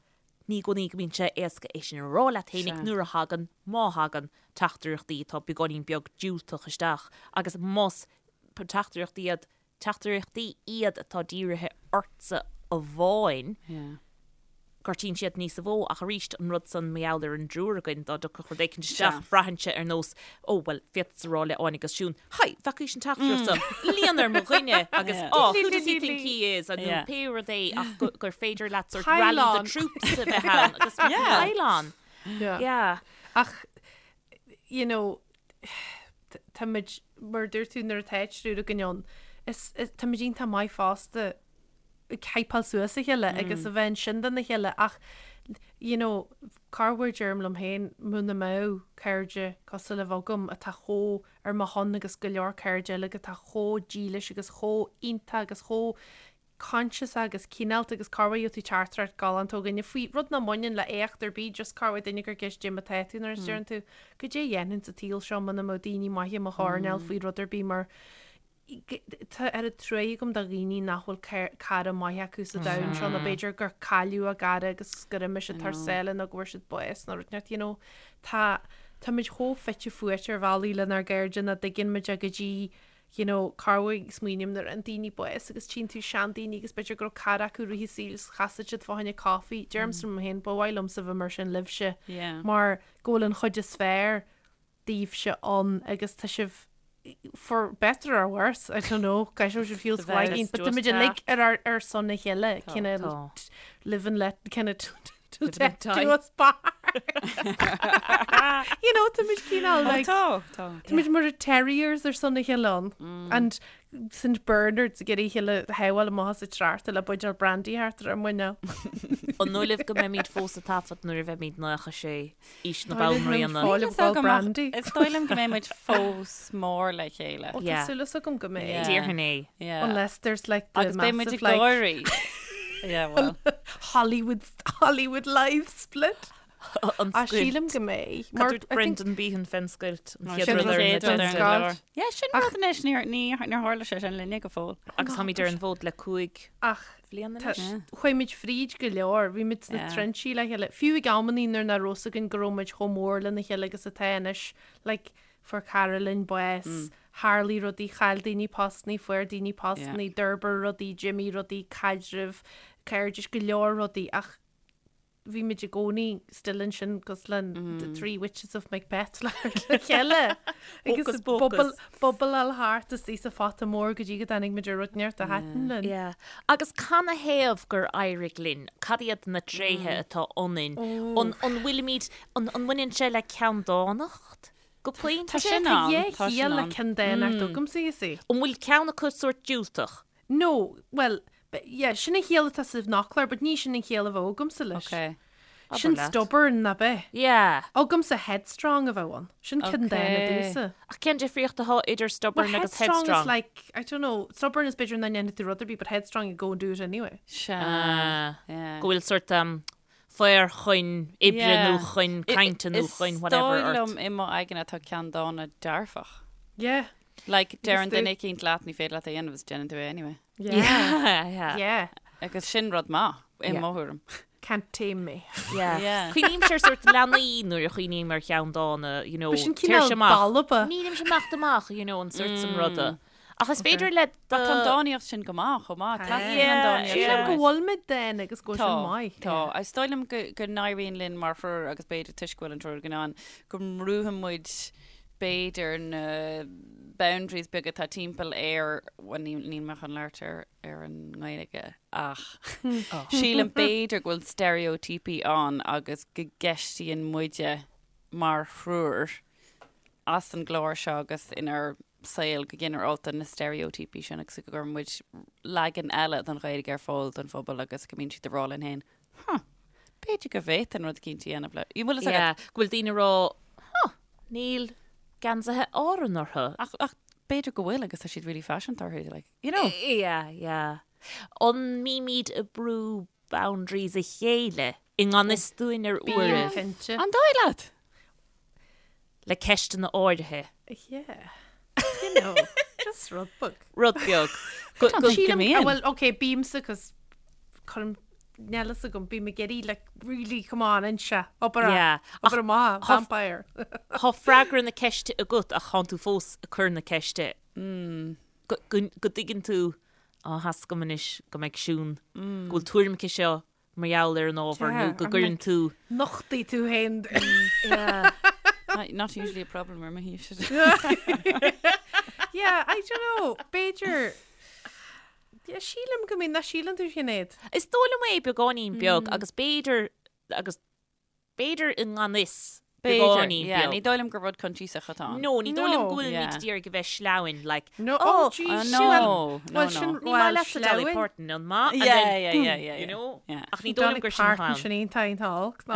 ní i gcónaí go mbíonn sé éasca é sin a rá leat fhéinig nuair a thagann, má thagann, teachtaireachtaí atá beagáinín beag diúltach isteach agus más teachtaireachtaí iad teachtaireachtaí iad atá dírithe ortsa amháin, gortaíonn siad níosa mhó, ach arís, an rud san mar gheall ar an dtriúr againn, dá dtiocfadh rud éicint isteach, braitheann sé ar nós, ó, bhuel, féadfadsa rá le Áine agus Siún, Hi, bhfacaís an teachtaireacht seo, líon ar mo dhuine, agus, oh, who does he think he is, nó pé rud é, ach gur féidir leat sort rally the troops a bheith ann, agus pile on. Yeah. Ach, you know, táimid, mar a dúirt tú nuair atá triúr againn ann, is, táimid iontach maith fosta. ag hypeáil suas a chéile agus a bheith ansin dona chéile ach you know corruair deirim liom féin muna mbeadh cairde cosúil libh agam atá chomh ar mo shon agus go leor cairde eile atá chomh dílis agus chomh iontach agus chomh conscious agus cineálta agus corruair gheobhaidh tú teachtaireacht galánta ó dhuine faoi rud nach mbaineann le éacht ar bith just corruair duine ag cur ceist goidé mar atá tú nuair a deireann tú goidé a dhéanfainn sa tsaol seo muna mbeadh daoine maithe i mo choirnéal faoi rud ar bith mar Tá oiread truaí agam do dhaoine nach bhfuil cara maith acu sa domhan seo nó b'fhéidir gur cailleadh a gcara agus gur imigh siad thar sáile nó go bhfuair siad bás nó rud inteacht, you know. Tá, táimid chomh fite fuaite ar bhealaí lenár gcairde nach dtuigeann muid é go dtí, you know, corruair smaoiním nuair a fhaigheann daoine bás agus tchíonn tú seandaoine agus b'fhéidir go raibh cara acu i rith a saoil is chasadh siad fá choinne coffee. Deirimse liom féin, ba mhaith liomsa bheith mar sin libhse mar go bhfuil an chuid is fearr daoibhse ann agus tá sibh for better or worse, I don't know, gaiseoidh sibh fiú sa bhfaigín, but tá muid uilig ar ár ar son a chéile, cineál live and let, kind of till death do us part. You know, tá muid cineál like, Tá, tá. tá muid mar terriers ar son a chéile ann. And St Bernards ag iarraidh a chéile a shábháil amach as an tsneachta le buidéal brandy thart ar ár muineál. An dóigh libh go mbeimid fós ag taifead nuair a bheimid 96? Aois na Banríona. Fáil ag fáil brandy. Is dóigh liom go mbeidh muid fós mór le chéile. Ó tá súil agam go mbeidh. Déarfainn é. Unless there's like the Agus beidh muid massive ag like gáirí. Yeah, well. Hollywood Hollywood live split. An Ah, scoilt. sílim go mbeidh. Cad Mar dúirt I think Brendan Behan fén scoilt, an chéad Sin rud an ar an chéad rud ar an agenda. scoilt. Yeah, sin rud anois, níor níor tharla sé sin linne go fóill. Agus táimid ar an bhfód le 5 Ach bhliain Tá, anois. chuaigh muid fríd go leor, bhí muid sna Yeah. trinsí le chéile, fiú ag amannaí nuair nach raibh fhios againn go raibh muid chomh mór lena chéile agus atá anois, like, fuair cara linn bás, tharlaigh rudaí, chaill daoine postannaí, fuair daoine postannaí, d'fhorbair rudaí, d'imigh rudaí, caidrimh, cairdis, go leor rudaí ach bhí muid i gcónaí still ansin cosúil le the three witches of Macbeth le chéile agus Hocus pocus. bubbleáil thart istigh sa phota mór go dtí go dtáinig muid ar rud inteacht a thaitin linn. Yeah. Agus canathaobh gur éirigh linn? Cad iad na tréithe atá ionainn? An an bhfuilimid, an an mbaineann sé le ceanndánacht go pointe? Tá sin Tá ann, dhá tá sin chiall le ann. ceanndánacht agamsa, you see. An bhfuil ceann acu sórt diúltach? No, bhuel, yeah, sin an chiall atá sa bhfoclóir, but ní sin an chiall a bheadh agamsa leis. Ok. Sin Abair leat. stubborn, nach bea? Yeah. Agamsa headstrong a bheadh ann. Sin ceanndána Ok. domhsa. Ach cén difríocht atá idir Well, stubborn agus headstrong is headstrong? like, I don't know, stubborn is b'fhéidir nach ndéanfaidh tú rud ar bith, but headstrong you go and do it anyway. Sea. Ah, Yeah. Go bhfuil sort um, faobhar chun oibre Yeah. nó chun cainte nó chun whatever Is dóigh ort. liom i mo aigne atá ceanndána dearfach. Yeah. Like, deireann do. duine eicínt leat ní féidir leat é a dhéanamh is déanann tú é anyway. Yeah. Yeah. Yeah. Agus sin rud maith i Yeah. mo thuairim. Can't tame me. Yeah. Yeah. Cuimhnímse ar sort leanaí nuair a chuimhním ar cheanndána, you know, But sin téir cineál sé amach. balba. Nílimse amach amach, you know, an sort san ruda. Ach is féidir le Tá an dánaíocht sin go maith chomh maith. Teastaíonn Yeah, an dánaíocht yeah. Sílim sin go uait. bhfuil muid dána agus go bhfuil Tá, sin maith. tá. Is dóigh liom go go n-éiríonn linn mar thriúr agus b'fhéidir toisc go bhfuil an triúr againn ann, go mbrúfaidh muid b'fhéidir na boundaries beaga atá timpeall ar, bhuel níl níl mé chun labhairt ar ar an nGaeilge ach sílim b'fhéidir go bhfuil steiréitíopaí ann agus go gceistíonn muide mar thriúr as an gclár seo agus inár saol go ginearálta na steiréitíopaí sin agus go gcuireann muid leagan eile den Ghaeilge ar fáil don phobal agus go mbíonn siad ag rá linn féin, huh, b'fhéidir go bhféadfainn rud eicínt a dhéanamh le, bhfuil fhios agat? Yeah, go bhfuil daoine ag rá, huh, níl geansaithe Árann orthu. Ach, ach b'fhéidir go bhfuil agus tá siad really faiseanta orthu, like, you know. Yeah, yeah. An mbímid ag brú boundaries a chéile i ngan fhios dúinn ar Bím uairibh cinnte. An dóigh leat? le ceisteanna áirithe. Yeah. You know, just rud beag. Rud beag. Go, go, Sílim, mbíonn. ah, well, okay, bímsa cos cuirim níl fhios agam, bím ag iarraidh, like, really, come on, inse, obair Yeah. obair amach, Tá- vampire. Tá freagra na ceiste agat ach tánn tú fós ag cur na ceiste. Go, go, go dtuigeann tú, á, tá fhios agam anois go mbeidh Siún, go bhfuil tuairim aici seo mar gheall ar an ábhar nó go gcuireann tú. Nochtaigh tú féin. Yeah. Not, not usually a problem ar mo thaobhse. Yeah, I don't know, b'fhéidir, yeah, sílim go mbíonn, nach síleann tú Sinéad? Is dóigh liom é beagáinín beag agus b'fhéidir, agus b'fhéidir i ngan fhios. Beagáinín yeah, beag. ní dóigh liom gur rud coinsiasach atá ann. No, ní dóigh liom No. go bhfuil Yeah. muid ag iarraidh a bheith sleamhain, like, No, oh, oh, geez, Ah, sin- no, no, Well, no. sin, ní maith well, leatsa Dolly sleamhain. Parton, an maith? And Yeah, then, yeah, boom, yeah, yeah, you yeah. know? Yeah. Ach ní dóigh liom Dolly gur sin Parton atá ann. sin iontach iontach olc, no.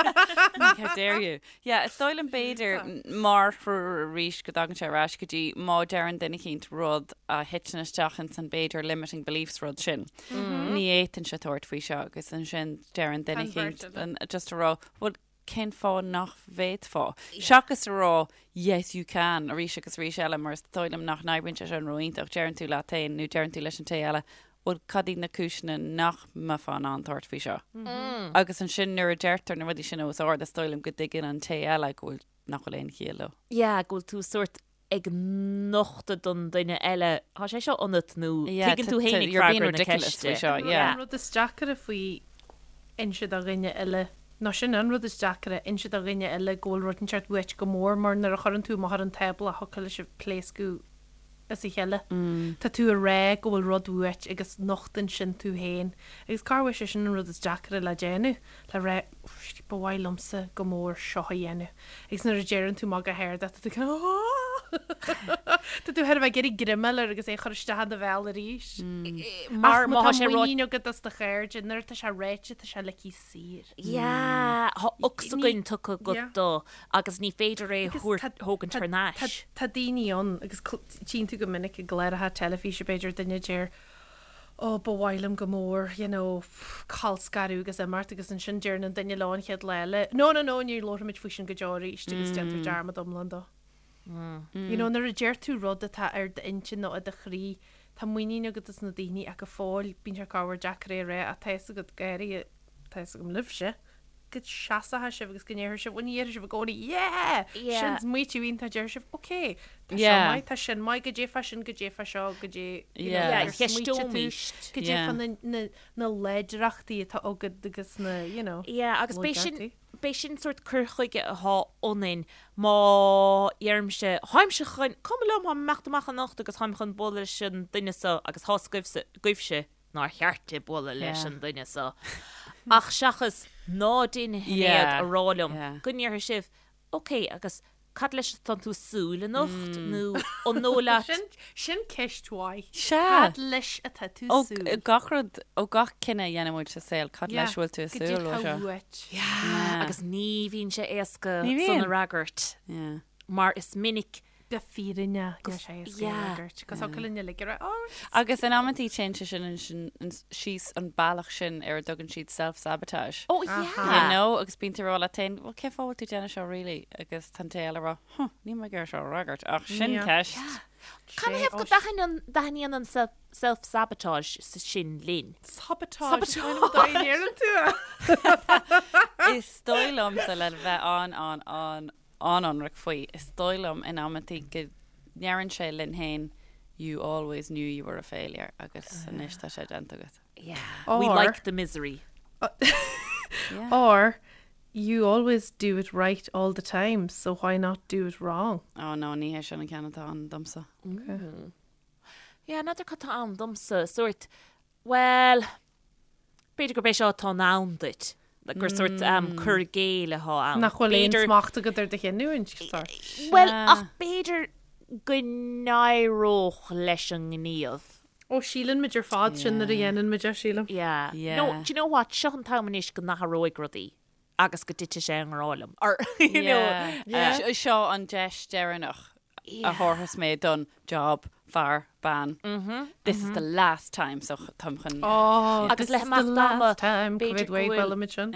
How dare you? Yeah, is dóigh liom b'fhéidir mar threoir arís go dtagann sé ar ais go dtí má deireann duine eicínt rud a thiteann isteach ins an b'fhéidir limiting beliefs rud sin. Ní fhéadfainnse tabhairt faoi seo agus ansin deireann duine Convert eicínt it. an- just a rá, well, cén fáth nach bhféadfá? Seachas a rá yes you can arís agus arís eile mar is dóigh liom nach n-oibríonn sé sin ró-iontach, deireann tú leat féin nó deireann tú leis an té eile bhuel cad iad na cúiseanna nach mbeifeá in ann tabhairt faoi seo? Agus ansin nuair a deirtear na rudaí sin os ard is dóigh liom go dtuigeann an té eile go bhfuil nach bhfuil aon chiall leo. Yeah, go bhfuil tú sórt ag nochtadh don duine eile, tá sé seo ionat nó Yeah, tuigeann tú féin you're being freagra na ridiculous ceiste. faoi seo, yeah. An rud is deacaire faoi inse do dhuine eile, nó sin an rud is deacaire, inse do dhuine eile go bhfuil rud inteacht uait go mór mar nuair a chuireann tú amach ar an tábla thiocfadh leis sibh pléascadh as a chéile. Tá tú ag rá go bhfuil rud uait agus nochtann sin tú féin. Agus corruair sé sin an rud is deacaire le déanamh, le rá ba mhaith liomsa go mór seo a dhéanamh. Agus nuair a deireann tú amach go hard é, tá tú kind of Tá tú chóir a bheith ag iarraidh greim a fháil air agus é a chur isteach in do bhéal arís. Mar Ach má má tá tá sé ráite muinín agat as do chairde, nuair atá sé ráite tá sé ligthe saor. Yeah, tá ocsaigin tugtha agat Yeah. dó agus ní féidir é Agus thabhairt tá- thógaint tá- thar n-ais. Tá daoine ann agus tchíonn tú go minic i gcláracha teilifíse b'fhéidir duine a deir oh ba mhaith liom go mór you know colscaradh agus imeacht agus ansin deireann an duine leo an chéad lá eile no no no ní labharfaimid faoi sin go deo arís agus déantar dearmad iomlán dó. You know nuair a deir tú rud atá ar d'intinn nó i do chroí tá muinín agat as na daoine ach go fóill bíonn sé corruair deacair é a rá ach tá fhios agat go háirithe tá fhios agam libhse go seasóidh sibh agus go ndéarfaidh sibh, bhuel ní dhéarfaidh sibh i gcónaí yeah! Yeah. Sin smaoitiú iontach déarfaidh sibh ok, tá seo Yeah. maith, tá sin maith, goidé fá sin, goidé fá seo, goidé, you know, Yeah. Yeah, ar smaoitigh tú, cheisteoimíst. goidé Yeah. fá na, na, na láidreachtaí atá agat agus na, you know, Yeah, agus b'é sin, laigeachtaí. b'é sin sórt cur chuige atá ionainn má dheirimse, tháimse chun, cuma liom, táim ag imeacht amach anocht agus táim chun bualadh leis an duine seo agus tá's agaibhse, agaibhse nár cheart di bualadh leis an duine seo. Ach seachas ná déan a Shinéad a rá liom go ndéarfaidh sibh, ok, agus cad leis atá tú ag súil anocht nó an dóigh leat. Sin, sin ceist mhaith. Sea. Cad leis atá tú Ó súil? gach rud, ó gach cinneadh a dhéanann muid sa saol, cad leis a bhfuil tú ag Goidé súil ó atá seo? uait? Yeah. Agus ní bhíonn sé éasca Ní san bhíonn. a fhreagairt Yeah. mar is minic Go fírinneach, níl sé éasca a fhreagairt. Cos thiocfadh linn uilig a rá, oh, Agus in amantaí téann sé sin ansin síos an bealach sin ar a dtugann siad self-sabotage. Oh yeah. You know, agus bíonn tú ag rá leat féin, well cén fáth a bhfuil tú ag déanamh seo really? Agus tá an té eile ag rá, huh, níl mé ag iarraidh seo a fhreagairt, ach sin ceist. Canathaobh go dtaitníonn an self-sabotage sin linn? Sabotage. Sabotage. tú é. Is dóigh liomsa le bheith an an an an-ionraic faoi. Is dóigh liom in amantaí go ndeireann sé linn féin you always knew you were a failure agus anois tá sé déanta agat. Yeah. We Or- like the misery. Yeah. Or you always do it right all the time, so why not do it wrong? Oh no, ní hé sin an ceann atá ann domsa. Yeah, n'fheadar cad tá ann domsa, sórt, well, B'fhéidir gurb é seo atá in ann duit, gur sórt cur i gcéill atá ann. Nach bhfuil aon B'fhéidir- smacht agat ar do chinniúint, sórt. Bhuel, ach b'fhéidir go n-éireodh leis an ngníomh. Ó, síleann muid ar fad sin nuair a dhéanann muid é, sílim. Yeah. Yeah. No, do you know what? Seo an t-am anois go n-athróidh rudaí agus go dtitfidh sé i ngrá liom. Or, you know, Yeah. Seo an deis deireanach a thabharfas mé don job, fear, bean. This is the last time so táim chun. Oh, Agus this le is the himeacht ama, last time, b'fhéidir go go bhfuil bhfuil- muid sin.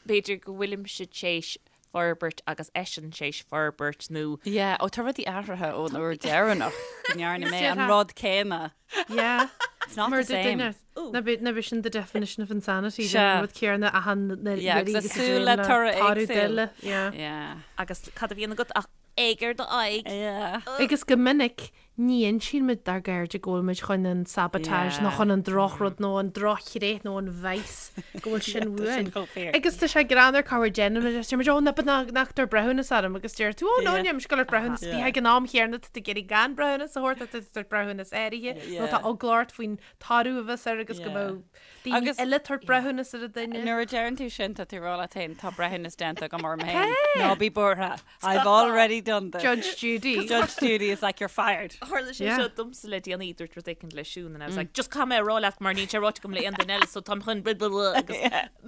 B'fhéidir go bhfuilimse théis forbairt agus eisean théis forbairt nó Yeah, ó tá rudaí athraithe ón uair deireanach go ndearna mé an rud céanna. Yeah. It's not Mar the same. Na b'é sin the definition of insanity, Sea. an rud céanna achan Yeah, agus ag súil le toradh éagsúil. Yeah. Yeah. agus cad a bhíonn agat ach éag ar do aghaidh. Yeah. Agus go minic. Ní insíonn muid dár gcairde go bhfuil muid chun an sabotage nó chun an drochrud nó an drochthréith nó an vice go bhfuil sin uainn. Agus tá sé greannmhar corruair déanann muid deir muid oh no but ná ná tabhair breithiúnas orm agus deir tú oh no níl mise ag dul ag tabhairt breithiúnas bhí ag an am chéanna tá tú ag iarraidh gan breithiúnas a thabhairt tá tú ag tabhairt breithiúnas áirithe nó tá eagla ort faoin toradh a bheas air agus go mbeadh daoine Agus eile ag tabhairt breithiúnas ar an duine. Nuair a deireann tú sin tá tú ag rá leat féin tá breithiúnas déanta agam orm féin. Ná bí buartha. I've already done this. Judge Judy. Judge Judy is like you're fired. Tharla sé Yeah. seo domsa le déanaí dúirt rud éicint le Siún and I was like just caithfidh mé a rá leat mar níl sé ráite agam le aon duine eile so táim chun blah blah blah agus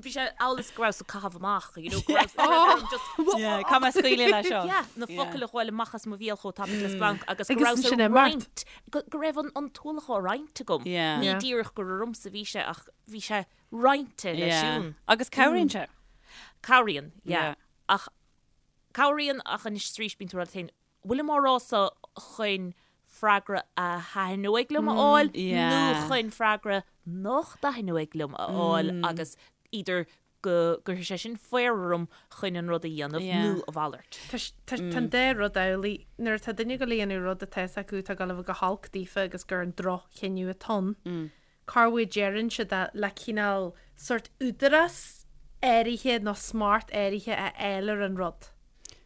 bhí sé amhail is go rabhas ag caitheamh amach you know go rabhas go raibh orm just Yeah, caithfidh mé scaoileadh leis seo. Yeah, na focail a ghabháil amach as mo bhéal chomh tapaidh le splanc agus go Agus rabhas ansin ag imeacht. roinnt go go raibh an an t-ualach á roinnt agam. Yeah. Ní Yeah. díreach gur ormsa a bhí sé ach bhí sé roinnte le Yeah. Siún. Agus cabhraíonn sé. Cabhraíonn, yeah. Yeah. Ach Cabhraíonn ach anois is arís bíonn tú ag rá leat féin, bhfuilim á rá seo chun freagra a thaitneoidh liom a fháil nó chun freagra nach dtaitneoidh liom a fháil agus either go gcuirfidh sé sin faobhar orm chun an rud a dhéanamh nó a mhalairt. Tá an dá rud amhlaidh. Nuair atá duine ag dul a dhéanamh rud atá fhios acu atá ag dul a bheith go holc daofa agus gur an droch-chinneadh atá ann, corruair deireann siad é le cineál sórt údarás áirithe nó smacht áirithe a fháil ar an rud,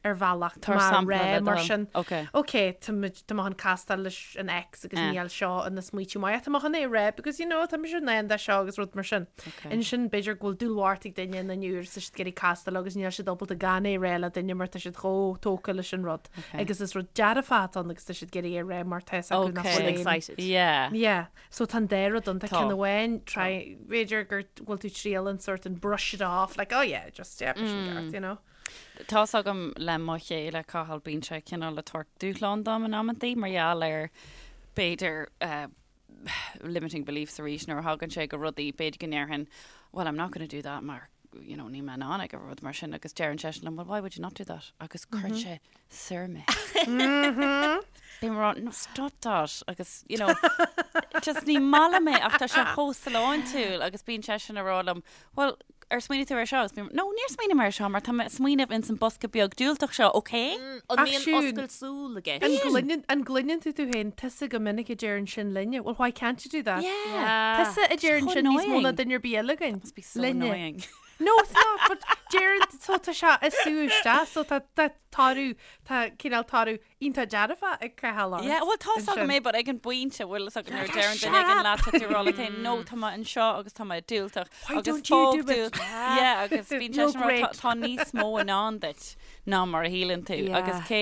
ar bhealach. Tá Tabhair mé sampla rá le mar do thoil. sin. Ok. Ok, tá muid, tá mé chun castáil leis an ex agus Eh. níl seo ina smaoitiú maith ach tá mé chun é a rá because you know tá mise in ann de seo agus rud mar sin. Ok. Ansin b'fhéidir go bhfuil dúlmhart ag duine ina ndiaidh agus tá siad ag iarraidh castáil agus níl siad ábalta gan é a rá le duine mar tá siad chomh tógtha leis an rud. Ok. Agus is rud dearfach atá ann agus tá siad ag iarraidh é a rá mar tá fhios acu nach Ok. bhfuil aon Excited. Yeah. Yeah. So tá an dá rud ann, tá Tá. ceann amháin, try, b'fhéidir gur bhfuil tú triail an sort an brush it off, like oh yeah, just yeah, sin ceart, you know. Tá's agam le mo chéile Cathal bíonn sé cineál ag tabhairt dúshlán dom in amantaí mar gheall ar b'fhéidir eh, limiting beliefs arís nuair a thagann sé go rudaí b'fhéidir go ndéarfainn well I'm not gonna do that mar you know, níl mé in ann ag rud mar sin agus deireann seisean liom well why would you not do that agus cuireann sé soir mé. Bím ag rá, no stop that agus you know just ní maith liom é ach tá sé chomh sláintiúil agus bíonn seisean ag rá liom well ar smaoinigh tú ar seo agus bím no níor smaoinigh mé ar seo mar tá mé ag smaoineamh ins an bosca beag diúltach seo ok? An Ach mbíonn Siún, oscailt súl i gceist? An gcluineann, an gcluineann tú tú féin tusa go minic a deireann sin linne, well why can't you do that? Yeah. Tusa a deireann So sin níos mó ná annoying. duine ar bith eile againn. Must be so Linne. annoying. No, it's not, but deireann, so tá sé ag sú isteach, so tá, tá toradh, tá cineál toradh iontach dearfach ag Cathal ort. Yeah, well tá's agam ansin. é, but ag an bpointe bhfuil fhios agat nuair a deireann duine éigin leat tá tú ag rá leat féin, no tá mé anseo agus tá mé diúltach. Why agus don't you fág do it? tú- Yeah, agus bíonn You're seisean ag rá, great. "Tá- tá níos mó i ndán duit ná mar a shíleann tú. Yeah. Agus cé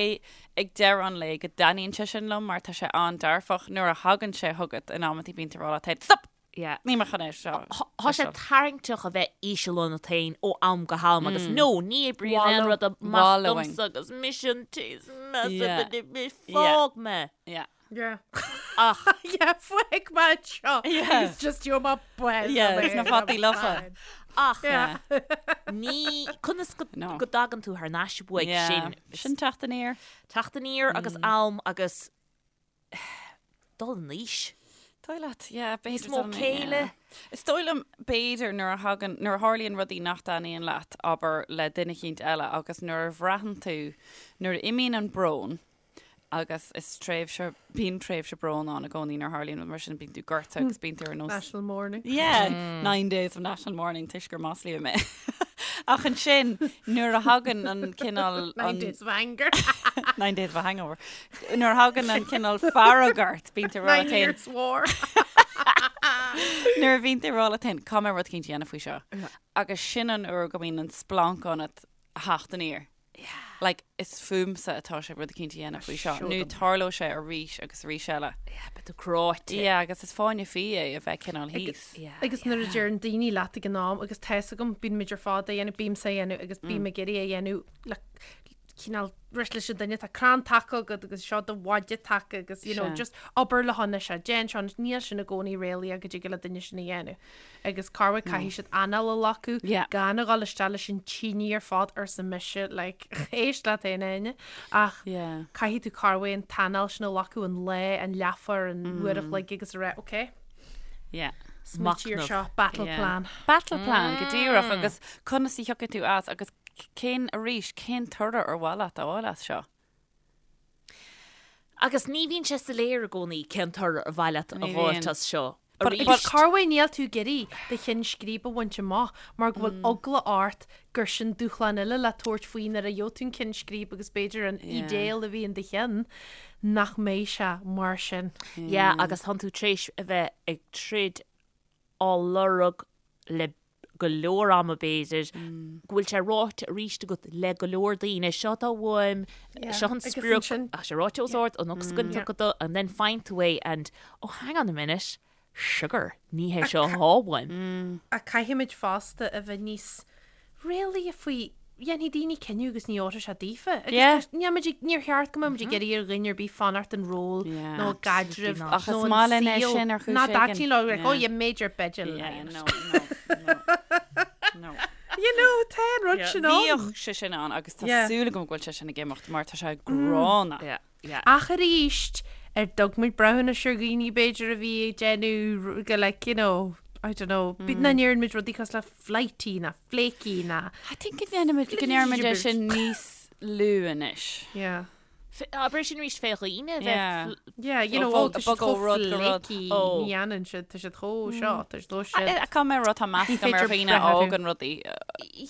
ag deireadh an lae go dtaitníonn sé sin liom mar tá sé an-dearfach nuair a thagann sé chugat in amantaí bíonn tú ag rá leat féin, stop! Yeah. Níl mé chun é seo. Tá sé tarraingteach a bheith íseal ionat féin ó am go ham agus no, ní oibríonn aon rud amach Wallowing. domsa agus mise an té is measa Yeah. fág mé. Yeah. Yeah. Ach Yeah, fág mé anseo. Yeah. It's just you're my best. Yeah, it's na fataí lofa. ach Yeah. ní conas go No. go dtagann tú thar n-ais uaidh Yeah. sin Sin teacht aniar. teacht aniar agus am agus dul in aois. Dóigh leat, yeah, b'fhéidir Níos mó dul in- céille. yeah. Is dóigh liom b'fhéidir nuair a thagann, nuair a tharlaíonn rudaí nach dtaitníonn leat, abair le duine eicínt eile agus nuair a bhraitheann tú, nuair a imíonn an brón, agus is tréimhse, bíonn tréimhse bróin ann i gcónaí nuair a tharlaíonn rud mar sin, bíonn tú gortaithe agus bíonn tú ar nós National Mourning. Yeah, nine days of national mourning toisc gur maslaíodh mé. Ach ansin nuair a thagann an cineál Nine days of anger. Nine days of a hangover. Nuair a thagann an cineál fearg ort, bíonn tú ag rá Nine leat féin. years war. Nuair a bhíonn tú ag rá leat féin, caithfidh mé rud eicínt a dhéanamh faoi seo. Agus sin an uair go mbíonn an splanc ionat a theacht aniar. Like, is fúmsa atá sé rud eicínt a dhéanamh faoi seo. Seo Nó dom. tarlóidh sé arís agus arís eile. Yeah, beidh tú cráite. Yeah, agus is fáinne fí é a bheith cineál thíos. Yeah. Agus nuair a deireann daoine leat ag an am agus tá fhios agam, bíonn muid ar fad á dhéanamh, bímse á dhéanamh agus bím ag iarraidh é a dhéanamh le cineál rith leis an duine, tá crann taca agat agus seo do mhaide taca agus you know, Sea. just obair le honna seo, déan seo, níl sin i gcónaí réalaíoch go dtig le duine sin a dhéanamh. Agus corruair caithfidh siad anáil a ghlacadh, Yeah. gan a dhul isteach leis an tine ar fad arsa mise, like, éist leat féin a Áine, ach Yeah. caithfidh tú corruair an t-anáil sin a ghlacadh an lá, an leathuair, an uair a chloig agus a rá, ok, Yeah. smaoitigh ar Machnamh. seo, battle Yeah. plan. Battle plan go díreach agus conas a thiocfaidh tú as agus cén arís, cén toradh ar mhaith leat a fháil as seo? Agus ní bhíonn sé soiléir i gcónaí cén toradh ar mhaith leat a Ní fháilt bhíonn. as seo. But- Arís. but- Corruair níl tú ag iarraidh do cheann scríbe a bhaint amach mar go bhfuil eagla ort gur sin dúshlán eile le tabhairt faoi nuair a gheobhaidh tú an ceann scríbe agus b'fhéidir an idéal a bhí in do cheann nach mbeidh sé mar sin. Yeah, agus tánn tú tar éis a bheith ag troid á lorg le go leor ama b'fhéidir, go bhfuil sé ráite arís agat le go leor daoine, seo atá uaim, seo an sprioc, tá sé ráite os ard, an ocsaigin tugtha do, and then faigheann tú é and, oh hang on a minute, sugar, ní hé seo atá uaim. Ach caithfimid fosta a bheith níos réalaíche faoi, dhéanfaidh daoine cinneadh agus ní fheilfidh sé daofa. Agus níl muid ag, níor cheart go mbeadh muid ag iarraidh ar dhuine ar bith fanacht an ról nó i gcaidreamh Ach nó is an maith linn é saol sin ar chúis ná éigin. dtaitníonn leo, like, oh yeah, major b'fhéidir Yeah, lying. no, no, no, no. You know, tá an rud sin ann. Bhíodh sé sin ann agus tá Yeah. súil agam go bhfuil sé sin ag imeacht mar tá sé gránna. Yeah, yeah. Ach arís, ar dtug muid breithiúnas ar dhaoine b'fhéidir a bhí ag déanamh go like, you know, I don't know, mm. ná ndeireann muid rudaí cosúil le flighty ná flaky ná. I think go ndéanaimid go ndeirimid é sin níos lú anois. Yeah. Abair sin arís fé dhaoine a bheith Yeah. Yeah, you know, Ó, oh, tá siad bog ó chomh rud go rud. flaky, Ó. ní dhéanann siad, tá siad chomh seo, tá siad chomh siad. Tá mé rud tá meas Ní agam ar féidir dhaoine breith orthu. fhágann rudaí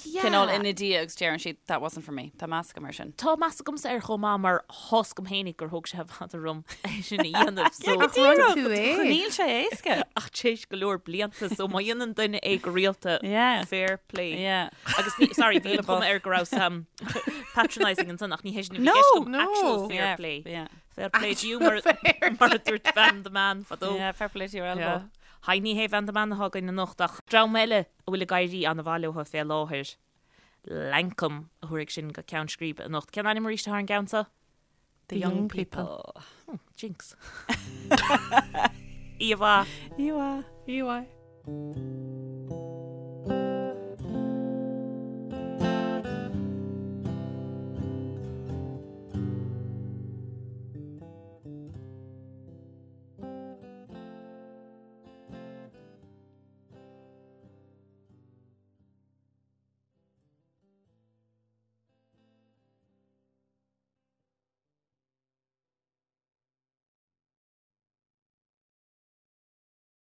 Yeah. cineál ina diaidh agus deireann siad that wasn't for me. Tá meas agam air sin. Tá meas agamsa air chomh maith mar tá 'fhios agam fhéinig gur thóg sé i bhfad orm é sin a dhéanamh so Ach rinn tú é. Níl sé éasca. ach tar éis go leor blianta so má dhéanann duine é go rialta Yeah. fair play. Yeah. Agus ní, sorry, bhí an Bhuaile chuma bos. air go raibh um, patronising ansan ach ní hé sin a bhí No, i gceist agam, no. actual fair Yeah, play. yeah. Fair play to you mar, mar a dúirt Van the Man fadó. Yeah, fair play to your elbow. Yeah. Haigh ní hé Van the Man atá againn anocht ach dream eile a bhfuil ag éirí an-mhaith leo fé láthair. Lankum a thabharfaidh sinn go ceann scríbe anocht. Cén ainm arís atá ar an gceann seo? The young people. Oh, jinx. Íomhá. Íomhá. Íomhá.